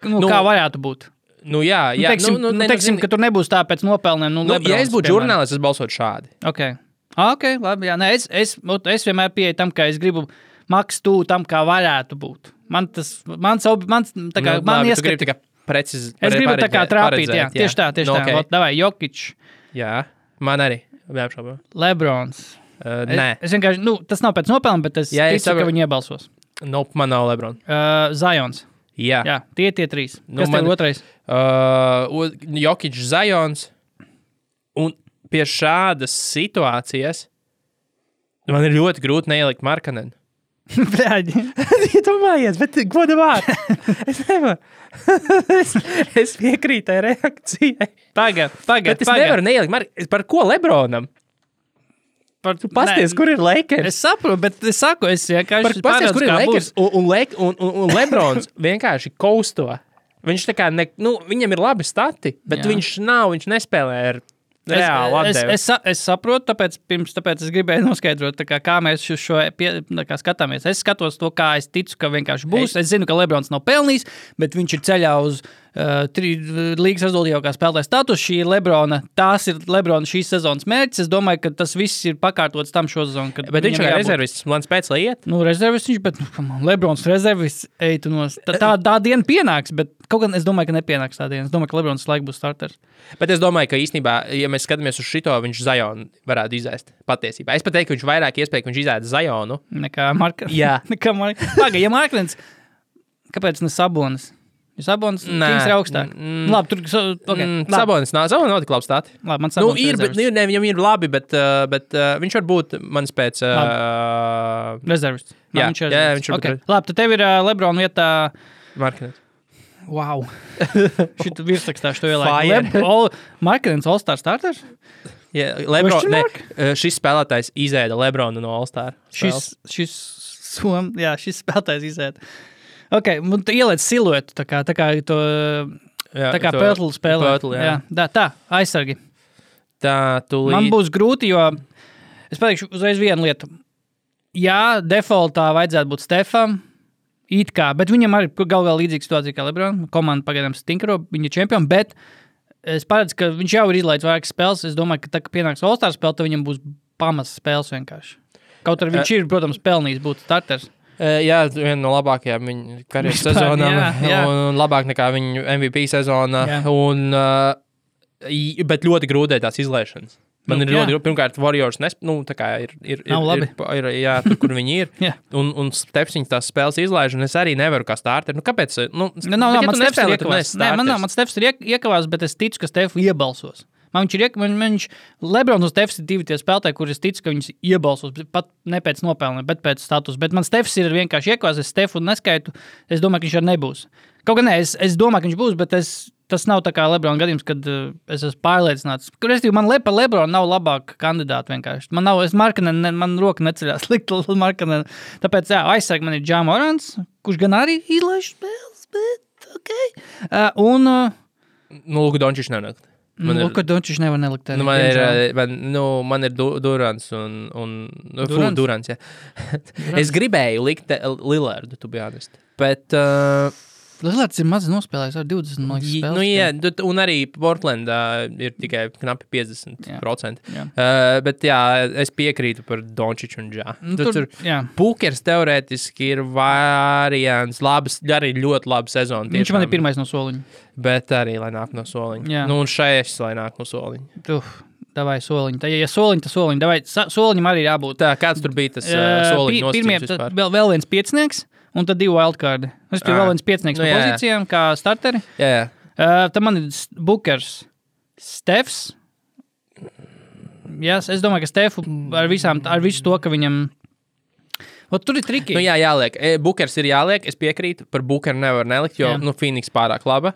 kā varētu būt. Teiksim, ka tur nebūs tā pēc nopelniem. Ja es būtu žurnālists, es balsotu šādi. Ok, labi, jā. Nē, es vienmēr pieeju tam, ka es gribu maks tu tam, kā varētu būt. Man ieskata... Es gribu tā kā trāpīt, jā. Tieši tā. Davai, Jokic. Jā, man arī. Neapšaubām. Lebrons. Nē. Es vienkārši, tas nav pēc nopelniem, bet es ticu, ka viņi iebalsos. Man nav Lebron. Zions. Jā. Tie 3. Kas tev otrais? Jokic, Zions. Un pie šādas situācijas man ir ļoti grūti neielikt Markanenu. Bļaļi. Iedomājies, bet godamāt. Es nevaru. es piekrītu tai reakcijai. Pagad. Bet es nevaru neielikt. Par ko Lebronam? Tu pasties, kur ir Lakers? Es saprotu, bet es saku, es vienkārši Pasties, kur ir Lakers un Lebrons vienkārši kausto. Viņš tā kā, viņam ir labi stati, bet viņš nespēlē ar reāli atdevi. Es saprotu, tāpēc es gribēju noskaidrot, kā mēs šo skatāmies. Es skatos to, kā es ticu, ka vienkārši būs. Es zinu, ka Lebrons nav pelnījis, bet viņš ir ceļā uz līgas rezultātīvākā spēlētāja status. Tās ir Lebrona šīs sezonas mērķis. Es domāju, ka tas viss ir pakārtots tam šo sezonu. Bet viņš ir rezervists, man spēc, lai iet? Rezervists viņš, bet Lebrons rezervists, eitu nos. Tā diena pienāks, bet kaut gan es domāju, ka nepienāks tā diena. Es domāju, ka Lebrons laik būs starters. Bet es domāju, ka īstenībā, ja mēs skatāmies uz šito, viņš Zionu varētu izēst patiesībā. Es pat teiktu, ka viņš vairāk iespēja, ka viņš izēst Zionu. Nekā Markens. Jā. Ja Markens, kāpēc ne Sabonis? Jo Sabonis Kings ir augstāk. Labi, tur... Okay, Sabonis nav tik labi stāti. Labi, man Sabonis viņam ir labi, bet viņš var būt mans pēc... rezervists. Jā, viņš var okay. Labi, tad tev ir Lebrona vietā... Markens. Wow. Šit virsrakstā šo ielaiku. Markens All-Star starters? Jā, šis spēlētājs izēda Lebronu no All-Star. Šis spēlētājs izēda. Ok, un tu ieliec siluetu, tā kā to, tā kā Pörtlu spēlē. Pörtlu, jā. Tā, aizsargi. Tā, tūlīt. Man būs grūti, jo es pateikšu uzreiz vienu lietu. Jā, defaultā vajadzētu būt Stefam, it kā, bet viņam arī galvā līdzīga situācija kā Lebron. Komanda pagaidām stinkro, viņa ir čempioni, bet es paredzu, ka viņš jau ir izlaidis vairākas spēles. Es domāju, ka tā, ka pienāks All-Star spēle, tad viņam būs pamats spēles vienkārši. Kaut arī viņš ir, protams, pelnījis būt starters. Jā, viena no labākajām viņa karjeras sezonām, un labāk nekā viņa MVP sezona, bet ļoti grūtē tās izlaišanas. Man ir ļoti grūti, pirmkārt, Warriors tā kā ir jā, tur, kur viņi ir, un Stefs viņas tās spēles izlaiž, un es arī nevaru kā starter. Kāpēc? Man Stefs ir iekavās, bet es ticu, ka Stefu iebalsos. Viņš Lebrons un Stefs ir divi tie spēlētāji, kur es ticu, ka viņus iebalsos, pat ne pēc nopelniem, bet pēc status. Bet man Stefs ir vienkārši iekavās, es Stefu neskaitu, es domāju, ka viņš arī nebūs. Kaut gan es domāju, ka viņš būs, bet tas nav tā kā Lebrona gadījums, kad es esmu pārliecināts. Man par Lebronu nav labāka kandidāta vienkārši. Man roka neceļās likt Markkanen. Tāpēc, aizsargi man ir Ja Morants, kurš gan arī izlaiž spēles, bet okei. Luka Dončičs nenakt. Luka Dončičs nevar nelikt. Man ir Durants un Durants, jā. Es gribēju likt Lillardu, to be honest. Bet... Lillards ir maz nospēlējis ar 20 spēles. Jā, un arī Portlandā ir tikai knapi 50%. Jā. Bet jā, es piekrītu par Dončiču un Ja. Pukers teorētiski ir variants, arī ļoti labi sezona. Viņš man ir pirmais no soliņa. Bet arī, lai nāk no soliņa. Jā. Un šais, lai nāk no soliņa. Davai soliņu. Ja soliņu, tad soliņu. Davai, soliņam arī jābūt. Tā, kāds tur bija tas soliņu nosacījums vispār? Vēl viens piecinieks. Un tad 2 wildcardi. Es tur vēl viens piecinieks no pozīcijām, kā starteri. Jā. Tad man ir Bookers, Stefs. Jā, es domāju, ka Stefu ar visu to, ka viņam... Tur ir triki. Jāliek. Bookers ir jāliek, es piekrītu. Par Bookeru nevar nelikt, jo Phoenix pārāk laba.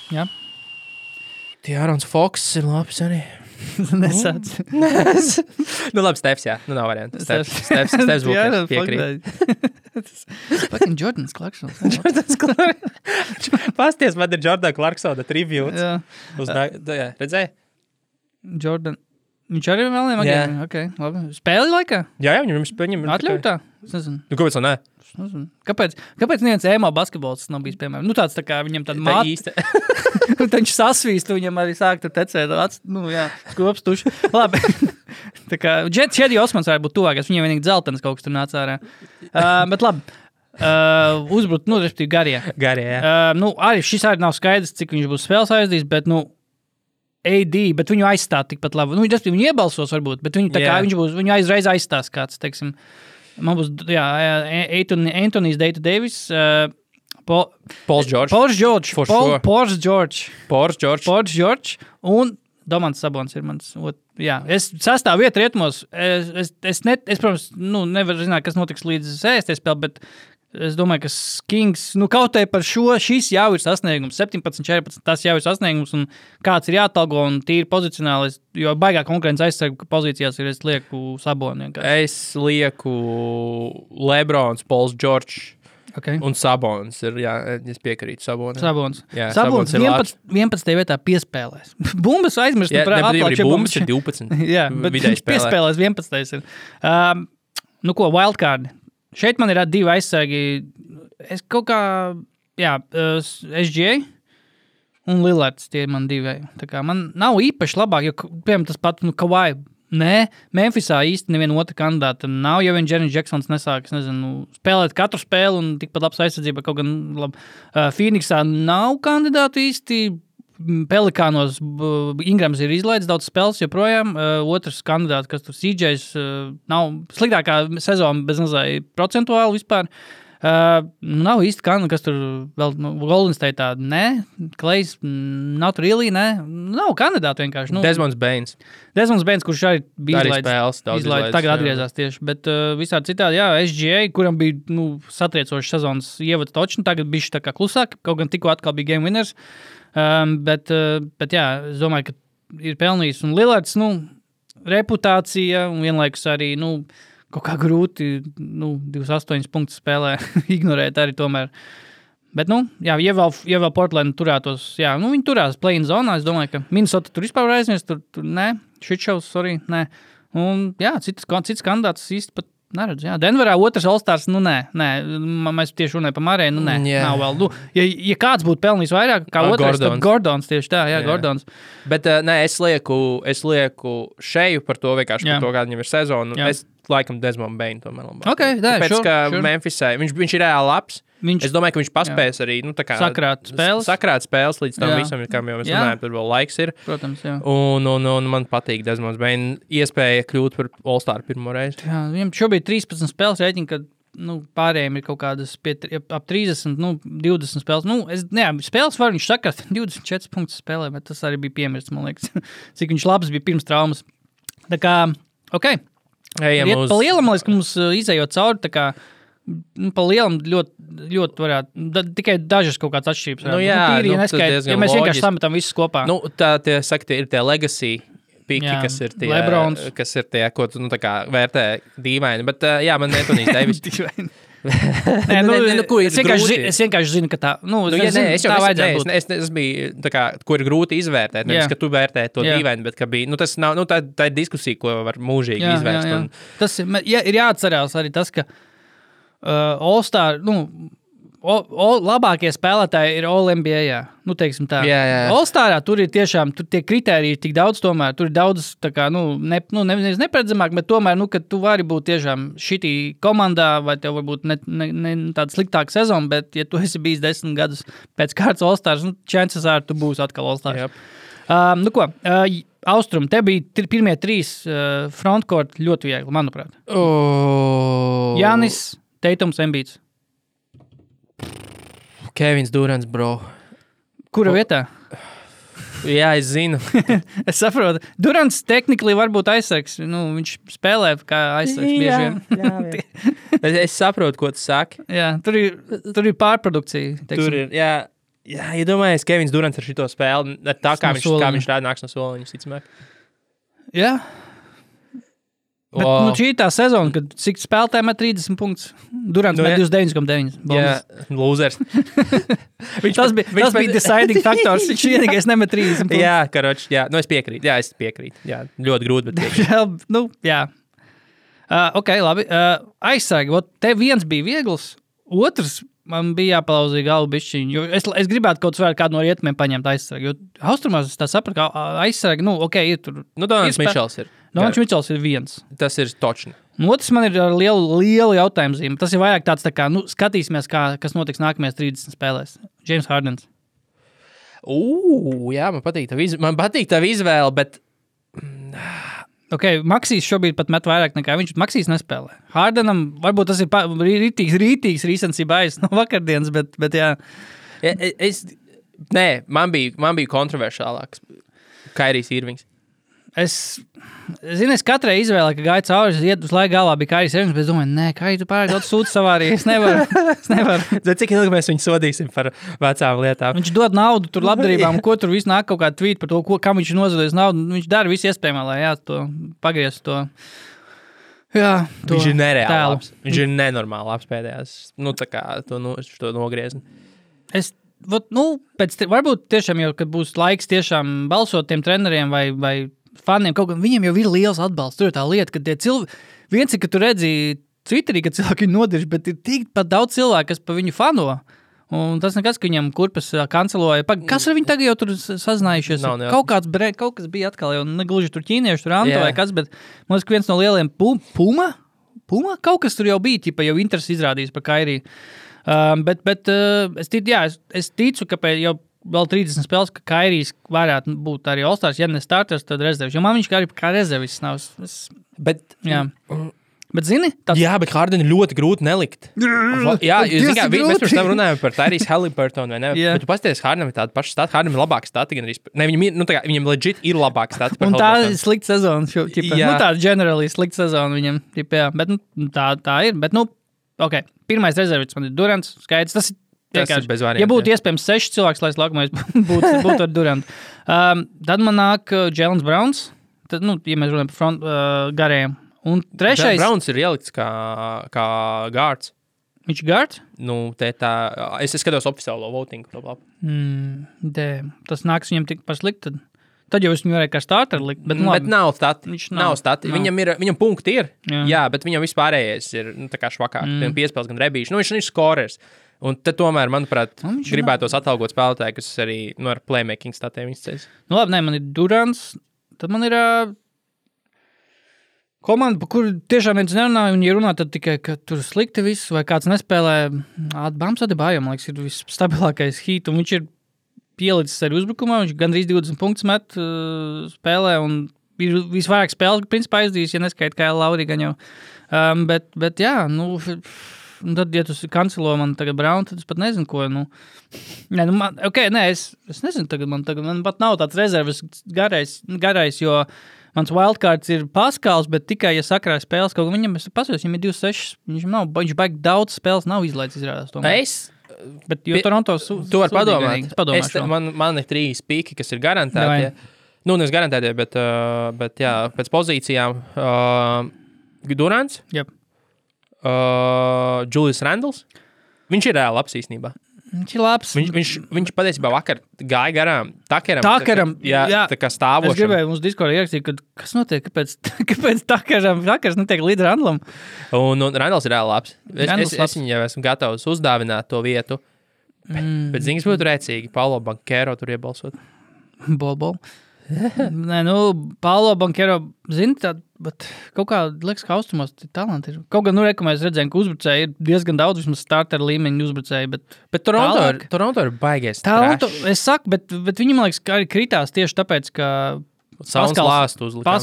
Jā. Ārons Foks ir labs arī. Nesāc. Labi, Stefs, jā. Nav variantu. Stefs Bookers, piekrīt. Fucking Jordans Clarksons. Pasties, man ir Jordan Clarksona tribute. Redzēji? Jordan. Viņš arī vēl nemagiem? Okay, labi. Spēli laikā? Jā, viņam atļautā? Es nezinu. Kāpēc tā ne? Kāpēc neviens ēmā basketbols nav bijis, piemēram? Tāds tā kā viņam tāda māte. Viņš sasvīst, viņam arī sāk tur tecēt. Skops tuši. Labi. Tā kā Čedi Osmans varētu būt tuvākais. Viņam vienīgi dzeltenis kaut kas tur nāca ārā. Bet labi. Uzbrūt, respektīvi garie. Garie, jā. Arī šis arī nav skaidrs, cik viņš būs spēles aizdījis, bet, AD, bet viņu aizstāt tikpat labi. Viņu iebalsos varbūt, bet viņu aizreiz aizstās kāds, teiksim. Man būs, Anthony's Data Davis, Pauls George, un Domants Sabons ir mans es sastāvu vietu rietumos. Es protams, nevaru zināt, kas notiks līdz sēsties spēlē, bet es domāju, ka Kings, kaut arī par šis jau ir sasniegums, 17-14, tas jau ir sasniegums, un kāds ir jāatalgo, un tīri pozicionāli, jo baigā konkurence aizsargu pozīcijās ir, es lieku Saboni. Es lieku Lebrons, Pauls Džordžs. Okay. Un Sabons ir, es piekrītu Sabonam. Sabons 11. vietā piespēlēs. Bumbas aizmirst par atklāčiem. Bumbas ir 12. Jā, bet viņš piespēlēs 11. ir. Wildcard. Šeit man ir 2 aizsargi. Es kaut kā, SGA un Lillards, tie ir man 2. Tā kā man nav īpaši labāk, jo, piemēram, tas pat, Kawhi. Nē, Memphisā īsti neviena otra kandidāta nav, jo Jaren Jacksons nesāk, spēlēt katru spēli un tikpat labs aizsardzība, kaut gan labi. Phoenixā nav kandidātu īsti, Pelikānos Ingrams ir izlaidis daudz spēles joprojām, otrs kandidāts, kas tur CJs, nav sliktākā sezona bez nazāja procentuāli vispār. Nav īsti kas tur vēl Golden State'ā, ne, Klejs, not really, ne, nav kandidātu vienkārši. Desmonds Bains, kurš arī bija izlaidis, tagad atgriezās tieši, bet visādi citādi, SGA, kuram bija, satriecošs sezonas ievads točni, tagad bišķi tā kā klusāk, kaut gan tikko atkal bija game winners, bet es domāju, ka ir pelnījis, un Lillards, reputācija, un vienlaikus arī, kaut kā grūti, 28 punktus spēlē ignorēt arī tomēr. Bet, ja vēl Portland turētos, viņi turās play-in zonā, es domāju, ka Minnesota tur vispār aizmies, tur nē, shitshows, sorry, nē. Un, cits kandidāts īsti pat neredz, Denverā otrs All-Stars, nē, mēs tieši runājam par Marēju, nav vēl. Ja kāds būtu pelnījis vairāk, kā otrais, tad Gordons tieši tā, Gordons. Bet, es lieku šeju par to, vienkārši par to, kāda viņam ir sezona. Es laikam Desmond Bain tomēr labāk. Tāpēc, ka Memphisai, viņš ir reāli labs. Es domāju, ka viņš paspēs arī, sakrāt spēles līdz tam visam, kam jau mēs runājam, tur vēl laiks ir. Protams, Un man patīk Desmonds Bain iespēja kļūt par All-Star pirmo reizi. Jā, viņam šobrīd 13 spēles rēķina, kad pārējiem ir kaut kādas ap 30, 20 spēles. Spēles var viņš sakrāt 24 punktus spēlē, bet tas arī bija piemirsts, man liekas, cik viņš labs bija pirms traumas. Tā kā, Riet pa lielam, man liekas, ka mums izējot cauri, tā kā pa lielam ļoti varētu, tikai dažas kaut kāds atšķirības. Ja mēs vienkārši sametam visus kopā. Tie ir tie legacy piki, kas ir tie, Lebrons. Kas ir tie, ko tu tā kā vērtē dīvaini, bet man Anthony Davis. Es vienkārši zinu, ka tā, es biju, tā kā, ko ir grūti izvērtēt, nevis, ka tu vērtē to dīvaini, bet, ka bija, tas nav, tā ir diskusija, ko var mūžīgi izvērst. Un... Tas ir jāatcerās arī tas, ka All-Star, labākie spēlētāji ir All-NBA, teiksim tā. All-Starā tur ir tiešām, tur tie kritēriji ir tik daudz tomēr, tur ir daudz, tā kā, neparedzamāk, bet tomēr, ka tu vari būt tiešām šitī komandā, vai tev varbūt ne tāda sliktāka sezona, bet, ja tu esi bijis 10 gadus pēc kārtas All-Stars, chances are, tu būsi atkal All-Stars. Austrum, te bija pirmie 3 frontcourt ļoti viegli, manuprāt. Jānis, Teitums, Embiids. Kevins Durants, bro. Kura vietā? Jā, es zinu. Es saprotu. Durants tehnikli varbūt aizsargs. Viņš spēlē kā aizsargs bieži vien. Es saprotu, ko tu saki. Jā, tur ir pārprodukcija. Tur ir, jā, domājies, Kevins Durants ar šito spēli, tā kā viņš rāda nāks no soliņa, visticamāk. Jā. Bet šī ir tā sezona, kad cik spēlētājiem met 30 punktus. Durants met 29,9. Jā, losers. Tas bija deciding faktors. Viņš vienīgais nemet 30 punktus. Jā, karoči, es piekrītu. Jā, es piekrītu. Jā, ļoti grūti, bet piekrītu. Jā. Labi. Aizsargi, te viens bija viegls, otrs man bija jāpalauzīja galvu bišķiņu, jo es gribētu kaut kādu no rietumiem paņemt aizsargi, jo Austrumās es tā sapratu, ka aizsargi, ir tur. Donalds Mičels ir. Donalds Mičels ir viens. Tas ir točni. Otrs man ir ar lielu jautājumu zīmi. Tas ir vairāk tāds tā kā, skatīsimies, kas notiks nākamajās 30 spēlēs. James Hardens. Jā, man patīk tā izvēle, bet... Maksīs šobrīd pat met vairāk nekā viņš. Maksīs nespēlē. Hardenam varbūt tas ir rītīgs recensība aiz no vakardienas, bet jā. Man bija kontroversiālāks Kairijs Irvings. Es katrai izvēlē, ka gāja cauri, es iet uz laiku galvā, bija Kairijs Irvings, bet es domāju, nē, Kairi, tu pārāk daudz sūdz savā arī, es nevaru. Zini, cik ilgi mēs viņu sodīsim par vecām lietām? Viņš dod naudu tur labdarībām, ko tur viss nāk kaut kāda tvīt par to, kam viņš nozadījis naudu. Viņš dara visu iespējamā, lai to pagriez to. Jā, to viņš ir nereāli tēlu. labs. Viņš ir nenormāli labs pēdējās. Nu, tā kā to nogriezni. Varbūt tiešām jau, kad būs laiks tiešām balsot tiem treneriem vai faniem, kaut kā viņiem jau ir liels atbalsts. Tur ir tā lieta, ka tie cilvēki, viens ir, ka tu redzi Twitterī, ka cilvēki ir nodirši, bet ir tik pat daudz cilvēku, kas pa viņu fano. Un tas nekas, ka viņam kurpes kanceloja. Kas ar viņu tagad jau tur sazinājušies? Kaut kas bija atkal jau negluži tur ķīnieši, tur Anto vai kas, bet man liekas, ka viens no lieliem Puma? Kaut kas tur jau bija, ķipa, jau interesi izrādījis par Kairiju. Es ticu, ka jau vēl 30 spēles, ka Kairijs varētu būt arī All-Stars, ja ne starters, tad rezervis. Jo man viņš kā rezervis nav. Bet zini? Jā, bet Hardenu ļoti grūti nelikt. Jā, mēs pirms tam runājām par Tyrese Halliburtonu, vai ne? Bet tu pasties, Hardenam ir tāda paša stata, Hardenam ir labāka stata, gan arī, viņam legit ir labāka stata par Halliburtonu. Un tā ir slikta sezona, tāda generally slikta sezona viņam, jā, bet tā ir, bet ok, pirmais rezervits man ir Durants, skaidrs, tas ir bez variantiem. Ja būtu iespējams 6 cilvēks, lai es laukumais būtu ar Durantu. Tad man nāk Jaylen Browns, tad, ja mēs runājam par garējiem. Un trešais... Browns ir ielikts kā guards. Viņš ir guards? Es skatos oficiālo votingu. Tas nāks viņam tik paslikt, tad jau es viņu varēju kā starter likt. Bet nav stati. Nav stati. Viņam punkti ir, jā, bet viņam vispārējais ir tā kā švakāk. Viņam piespēles gan rebīši. Viņš ir skorers. Un te tomēr, manuprāt, gribētos atalgot spēlētāju, kas arī ar playmaking statiem izceļas. Labi, man ir Durants, tad man ir... komanda, par kuru tiešām viens nerunāja, un ja runā, tad tikai, ka tur slikti viss, vai kāds nespēlē. Bams Adebayo, man liekas, ir visstabilākais hīt, un viņš ir pielicis arī uzbrukumā, viņš gandrīz 20 punktus met spēlē, un ir visvairāk spēles, principā aizdījis, ja neskaita kā Lauri gan jau. Bet jā, tad, ja tu kancelo man tagad Brown, tad es pat nezinu, ko, es nezinu, tagad man pat nav tāds rezerves garais, jo mans wildcards ir Paskals, bet tikai, ja sakrāja spēles, kaut kā viņam, es pasaos, viņam ir 26, viņš baigi daudz spēles nav izlaicis izrādās. Bet jo Toronto tu vari padomāt. Man ir 3 pīki, kas ir garantēti. Nevis garantēti, bet jā, pēc pozīcijām Durants, Julius Randles. Viņš ir reāli labs īstenībā. Viņš ir labs. Viņš patiesībā vakar gāja garām Takeram. Jā, tā kā stāvošam. Es gribēju mums Discordā ierakstīt, kas notiek, kāpēc Takers netiek līdz Randlam. Un Randls ir reāli labs. Es viņu jau esmu gatavs uzdāvināt to vietu. Bet ziņas būtu rēcīgi. Paulo Banchero tur iebalsot. Bol. Paulo Banchero, bet kaut kā liekas, ka austrumos talanti ir. Kaut gan, mēs redzējām, ka uzbrucēji ir diezgan daudz, vismaz starter līmeņa uzbrucēji, bet Toronto ir baigies trash. Es saku, bet viņi, man liekas, arī kritās tieši tāpēc, ka Sauns lāstu uzlikām.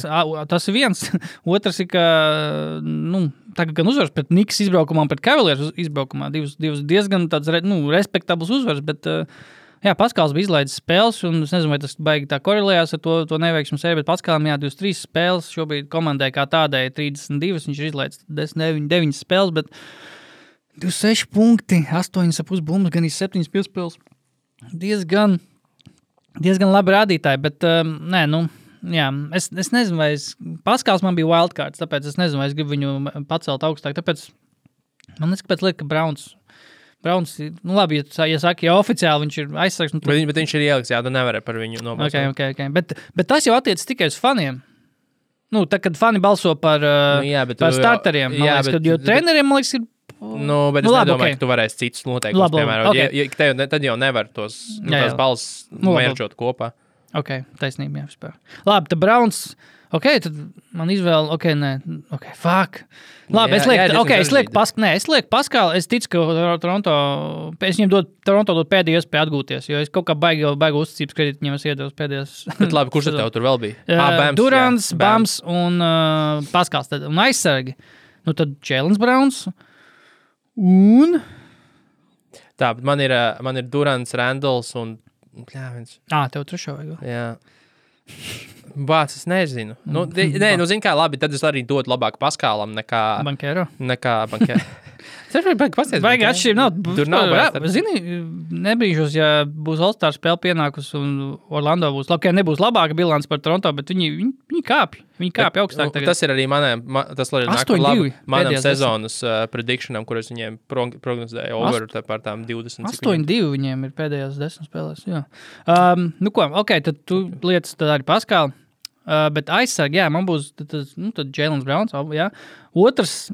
Tas ir viens. Otrs ir, ka, tagad gan uzvars pret Knicks izbraukumā un pret Cavaliers izbraukumā. Divas diezgan tāds, respektabls uzvars, bet... Jā, Paskals bija izlaidis spēles, un es nezinu, vai tas baigi tā korelējās ar to neveiksmu sēriju, bet Paskalam 23 spēles, šobrīd komandai kā tādai 32, viņš ir izlaidis 9 spēles, bet 26 punkti, 8,5 bumbas, gan 7 piespēles. Diezgan labi rādītāji, bet jā, es nezinu, vai Paskals man bija wildcards, tāpēc es nezinu, vai es gribu viņu pacelt augstāk, tāpēc man neskapēc liek, ka Browns, labi, ja saka, ja oficiāli viņš ir aizsargs. Bet viņš ir ieliks, jā, tu nevari par viņu nobalsot. Okay. Bet tas jau attiec tikai uz faniem. Tad, kad fani balso par starteriem, man liekas, jo treneriem, man liekas, ir... bet es nedomāju, ka tu varēsi citus noteikumus, piemēram. Tad jau nevar tās balss mērķot kopā. Ok, taisnība, jā, vispār. Labi, tad Browns... tad man izvēle, fuck. Labi, es lieku Paskalu, es ticu, ka es viņam Toronto dod pēdējo iespēju atgūties, jo es kaut kā baigi uzticības kredītu viņam es iedevu pēdējos. Bet labi, kurš tev tur vēl bija? Durants, Bams un Paskals, un aizsargi. Tad Jaylen Browns un... Tā, bet man ir Durants, Randles un... tev trešo vajag. Jā. Bāc, es nezinu. Nē, zini kā labi, tad es arī dotu labāk Paskālam nekā Bankero. Bankero. Vajag atšķirību nav. Tur nav vairs. Zini, nebrīžos, ja būs All-Star spēle pienākus un Orlando būs. Labi, nebūs labāka bilants par Toronto, bet viņi kāpj. Viņi kāpj augstāk tagad. Tas ir arī tas nāk labi manam sezonas predictionam, kuras viņiem prognozēja over par tām 20. 8-2 viņiem ir pēdējās 10 spēlēs. Jā. Nu ko, ok, tad tu lietas tad arī Paskāli. Bet aizsargi, jā, man būs tad Jaylen Browns, jā. Otrs,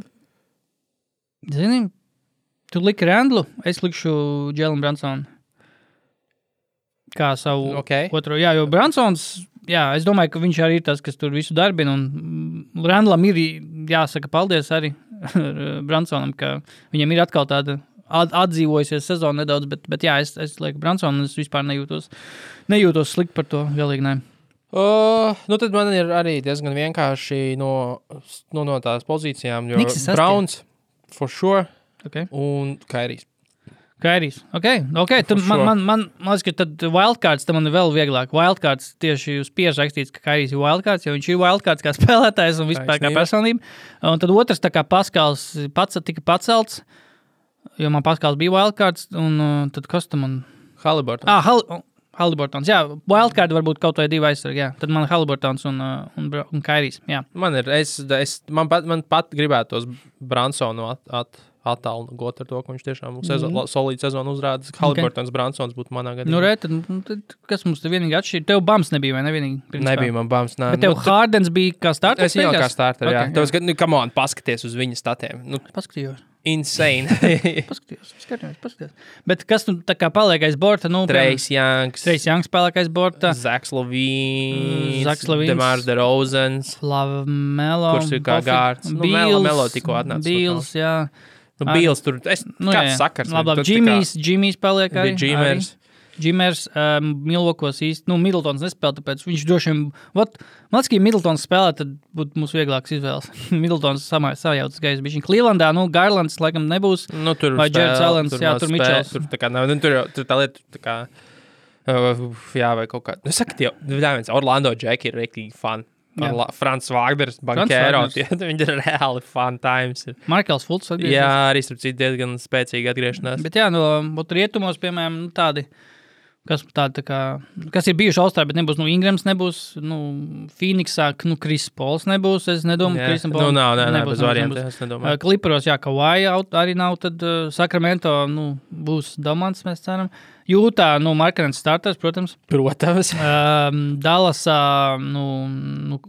zini, tu liki Randlu, es likšu Jaylen Brunsonu kā savu otro. Jā, jo Brunsons, jā, es domāju, ka viņš arī ir tas, kas tur visu darbina, un Randlam ir jāsaka paldies arī Brunsonam, ka viņam ir atkal tāda atdzīvojusies sezona nedaudz, bet jā, es lieku Brunsonu, un es vispār nejūtos slikt par to, galīgi ne. Tad man ir arī diezgan vienkārši no tās pozīcijām, jo Browns for sure un Kairijs. Kairijs, ok. Tad man liekas, ka tad wildcards, tad man ir vēl vieglāk. Wildcards tieši uz pieres rakstīts, ka Kairijs ir wildcards, jo viņš ir wildcards kā spēlētājs un vispār kā personība. Un tad otrs, tā kā Paskals tika pacelts, jo man Paskals bija wildcards, un tad kas tam man... Haliburton. Haliburtons, jā. Wildcard varbūt kaut vai 2 aizsargi, jā. Tad man Haliburtons un Kairijs, jā. Man pat gribētos Brunsonu attālgot ar to, ka viņš tiešām solīdu sezonu uzrāda. Haliburtons, Brunsons būtu manā gadījumā. Tad kas mums te vienīgi atšķir? Tev Bams nebija, vai ne vienīgi? Nebija man Bams, nē. Bet tev Hardens bija kā starter? Es jau kā starter, jā. Tev, come on, paskaties uz viņa statiem. Paskatījos. Insane. Paskatījos. Bet kas tu tā kā paliek aiz borta? Trace Youngs paliek aiz borta. Zach Lavīns. DeMar DeRozans. Lamelo. Kurš ir kā gārds. Melo tikko atnāca. Bīls, jā. Bīls tur. Kāds sakars? Labi, Jimmys paliek arī. Džimers, Milvokos īsti, Middletons nespēlē, tāpēc viņš droši vien, man liekas, ka Middletons spēlē, tad būtu mums vieglāks izvēles. Middletons sajautas gaiss bišķiņ. Clevelandā, Garlands laikam nebūs, vai Jareds Allens, jā, tur Mitchells. Tur tā lieta, tā kā, jā, vai kaut kā, saka, Orlando Jack ir rektīgi fani. Frans Wagners, Bankero, viņi ir reāli fun times. Markels Fultz atgriežas. Jā, arī starp citu diezgan spēcīgi atgriešanās. Bet jā, rietumos, piemēram, tādi, kas ir bijuši All-Star, bet nebūs, Ingrams nebūs, Phoenixā, Chris Pauls nebūs, es nedomāju, Chrisam Pauls nebūs. Bez variantiem, es nedomāju. Clipperos, jā, Kawhi arī nav, tad Sacramento, būs domants, mēs ceram. Jūtā, Markanens starters, protams. Dallasā,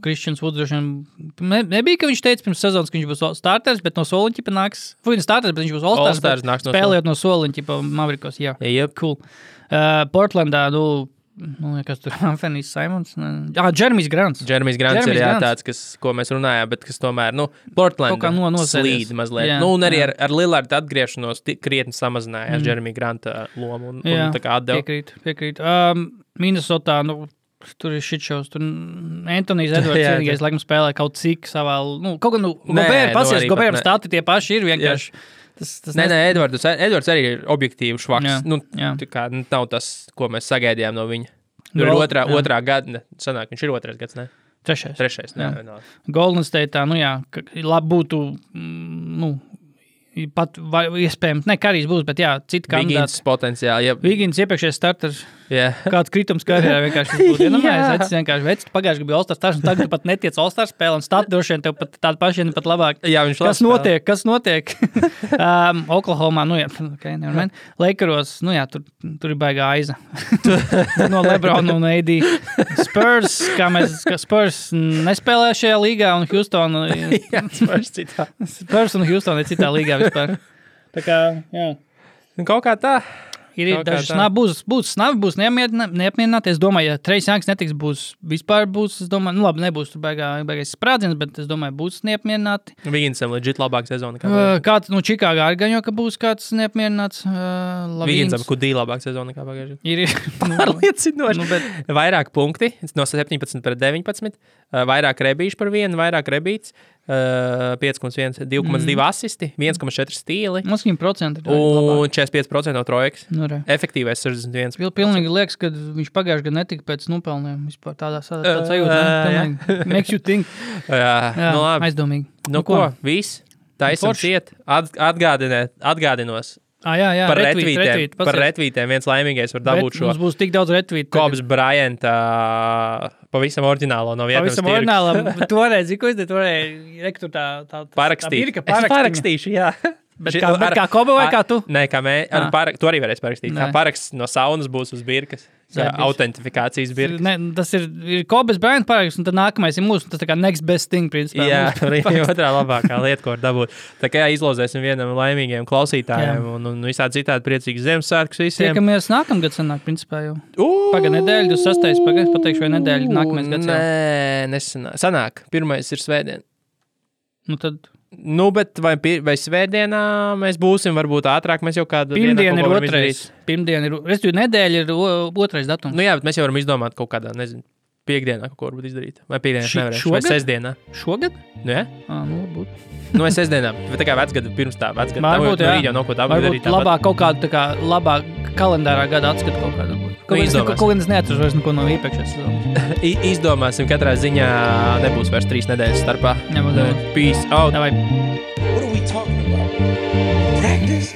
Christians Woods droši vien nebija, ka viņš teica pirms sezonas, ka viņš būs starters, bet no soliņķipa nāks. Viņš starters, bet viņš būs All-Stars, spēlējot no soliņķipa Mavericos, jā. Cool. Portlandā, kas tur Anthony Simons? Jeremijs Grants. Jeremijs Grants ir tāds, ko mēs runājām, bet kas tomēr, Portlandā slīd mazliet. Un arī ar Lillardu atgriešanos krietni samazinājās Jeremija Granta lomu un tā kā atdeva. Piekrīt. Minnesotā, tur ir shitshows. Tur Antonijs Edvards vienīgais laikam spēlē kaut cik savā, kaut gan, Gobēram stati tie paši ir vienkārši. Nē, Edvards arī ir objektīvi švaks. Tā kā nav tas, ko mēs sagaidījām no viņa. Tur ir otrā gada, sanāk, viņš ir otrais gads, ne? Trešais. Golden State'ā, labi būtu, pat iespējams, Karijs būs, bet jā, citi kandidāti. Vigins potenciāli. Vigins iepriekšējais starters. Kāds kritums karjerā vienkārši būtu. Es vienkārši vecu, pagājuši bija All-Star stars, un tagad tu pat netiec All-Star spēle, un stati droši vien tev pat tādi paši, pat labāk. Jā, viņš Kas notiek? Oklahomā, nevermind. Lakeros, tur ir baigā aiza. No LeBron un AD. Spurs nespēlē šajā līgā, un Houston. Spurs un Houston ir citā līgā vispār. Tā kā, jā. Kaut kā tā. Ir daži snavi, būs neapmierināti. Es domāju, ja Trace Youngs netiks, es domāju, labi, nebūs tur baigais sprādziens, bet es domāju, būs neapmierināti. Viginsam legit labāk sezona. Kāds, Čikāgā arī gan jau, ka būs kāds neapmierināts. Viginsam, kudī labāk sezona kā pagājuši. Ir pārliecinoši. Vairāk punkti, no 17 pret 19, vairāk rebīšu par vienu, vairāk rebīts, 5,1, 2,2 asisti, 1,4 stīli Mums viņam procenti ir un 45% no trojkas. Nu, re. Efektīvais 61. Pilnīgi liekas, ka viņš pagājuši gadu netika pēc nopelniem. Vispār tādā sajūta. Pilnīgi makes you think. Jā, nu labi. Aizdomīgi. Nu ko, viss. Taisam ciet. Atgādinos. Jā, Par retvītiem viens laimīgais var dabūt šo. Mums būs tik daudz retvītu. Kobs Bryant pavisam oriģinālo no vietnams pavisam oriģinālam. Toreiz, ko es te rektu tā parakstīt. Es parakstīšu, jā. Bet kā Koba vai kā tu? Nē, kā tu arī varēsi parakstīt. Kā paraksts no saunas būs uz birkas. Autentifikācijas birkas. Ne, tas ir Kobas Bryant paraksts, un tad nākamais ir mūsu, tas tā kā next best thing, principā. Jā, arī otrā labākā lieta, ko var dabūt. Tā kā izlozēsim vienam laimīgiem klausītājiem un visādi citādi priecīgas Ziemassvētkus visiem. Tiekamies nākamgad sanāk, principā jau. Paga nedēļa, 26. pateikšu, vai nedēļa nākamais gads jau. Nē, nesanāk. Sanāk, pirmais ir svētdien. Nu tad... Nu, bet vai svētdienā mēs būsim, varbūt ātrāk, mēs jau kādu Pirmdien ir otrais. Pirmdien ir, respektīvi, nedēļa ir otrais datums. Nu jā, bet mēs jau varam izdomāt kaut kādā, nezinu, piekdienā kaut ko varbūt izdarīt. Vai piekdienā nevarēšu, vai sestdienā. Šogad? Nu jā? Nu, varbūt. Nu, vai sestdienā, bet tā kā vecgada pirms tā, vecgada. Varbūt, jā. Jau nav ko tā darīt. Varbūt labāk kaut kādu, tā kā labāk kalendārā gada atskatu kaut kādu. Kaut kādas neatceros vairs neko no iepriekšējās sezonas. Izdomāsim, katrā ziņā nebūs vairs 3 nedēļas starpā. Nebūs. Peace out. Davai. What are we talking about? Practice?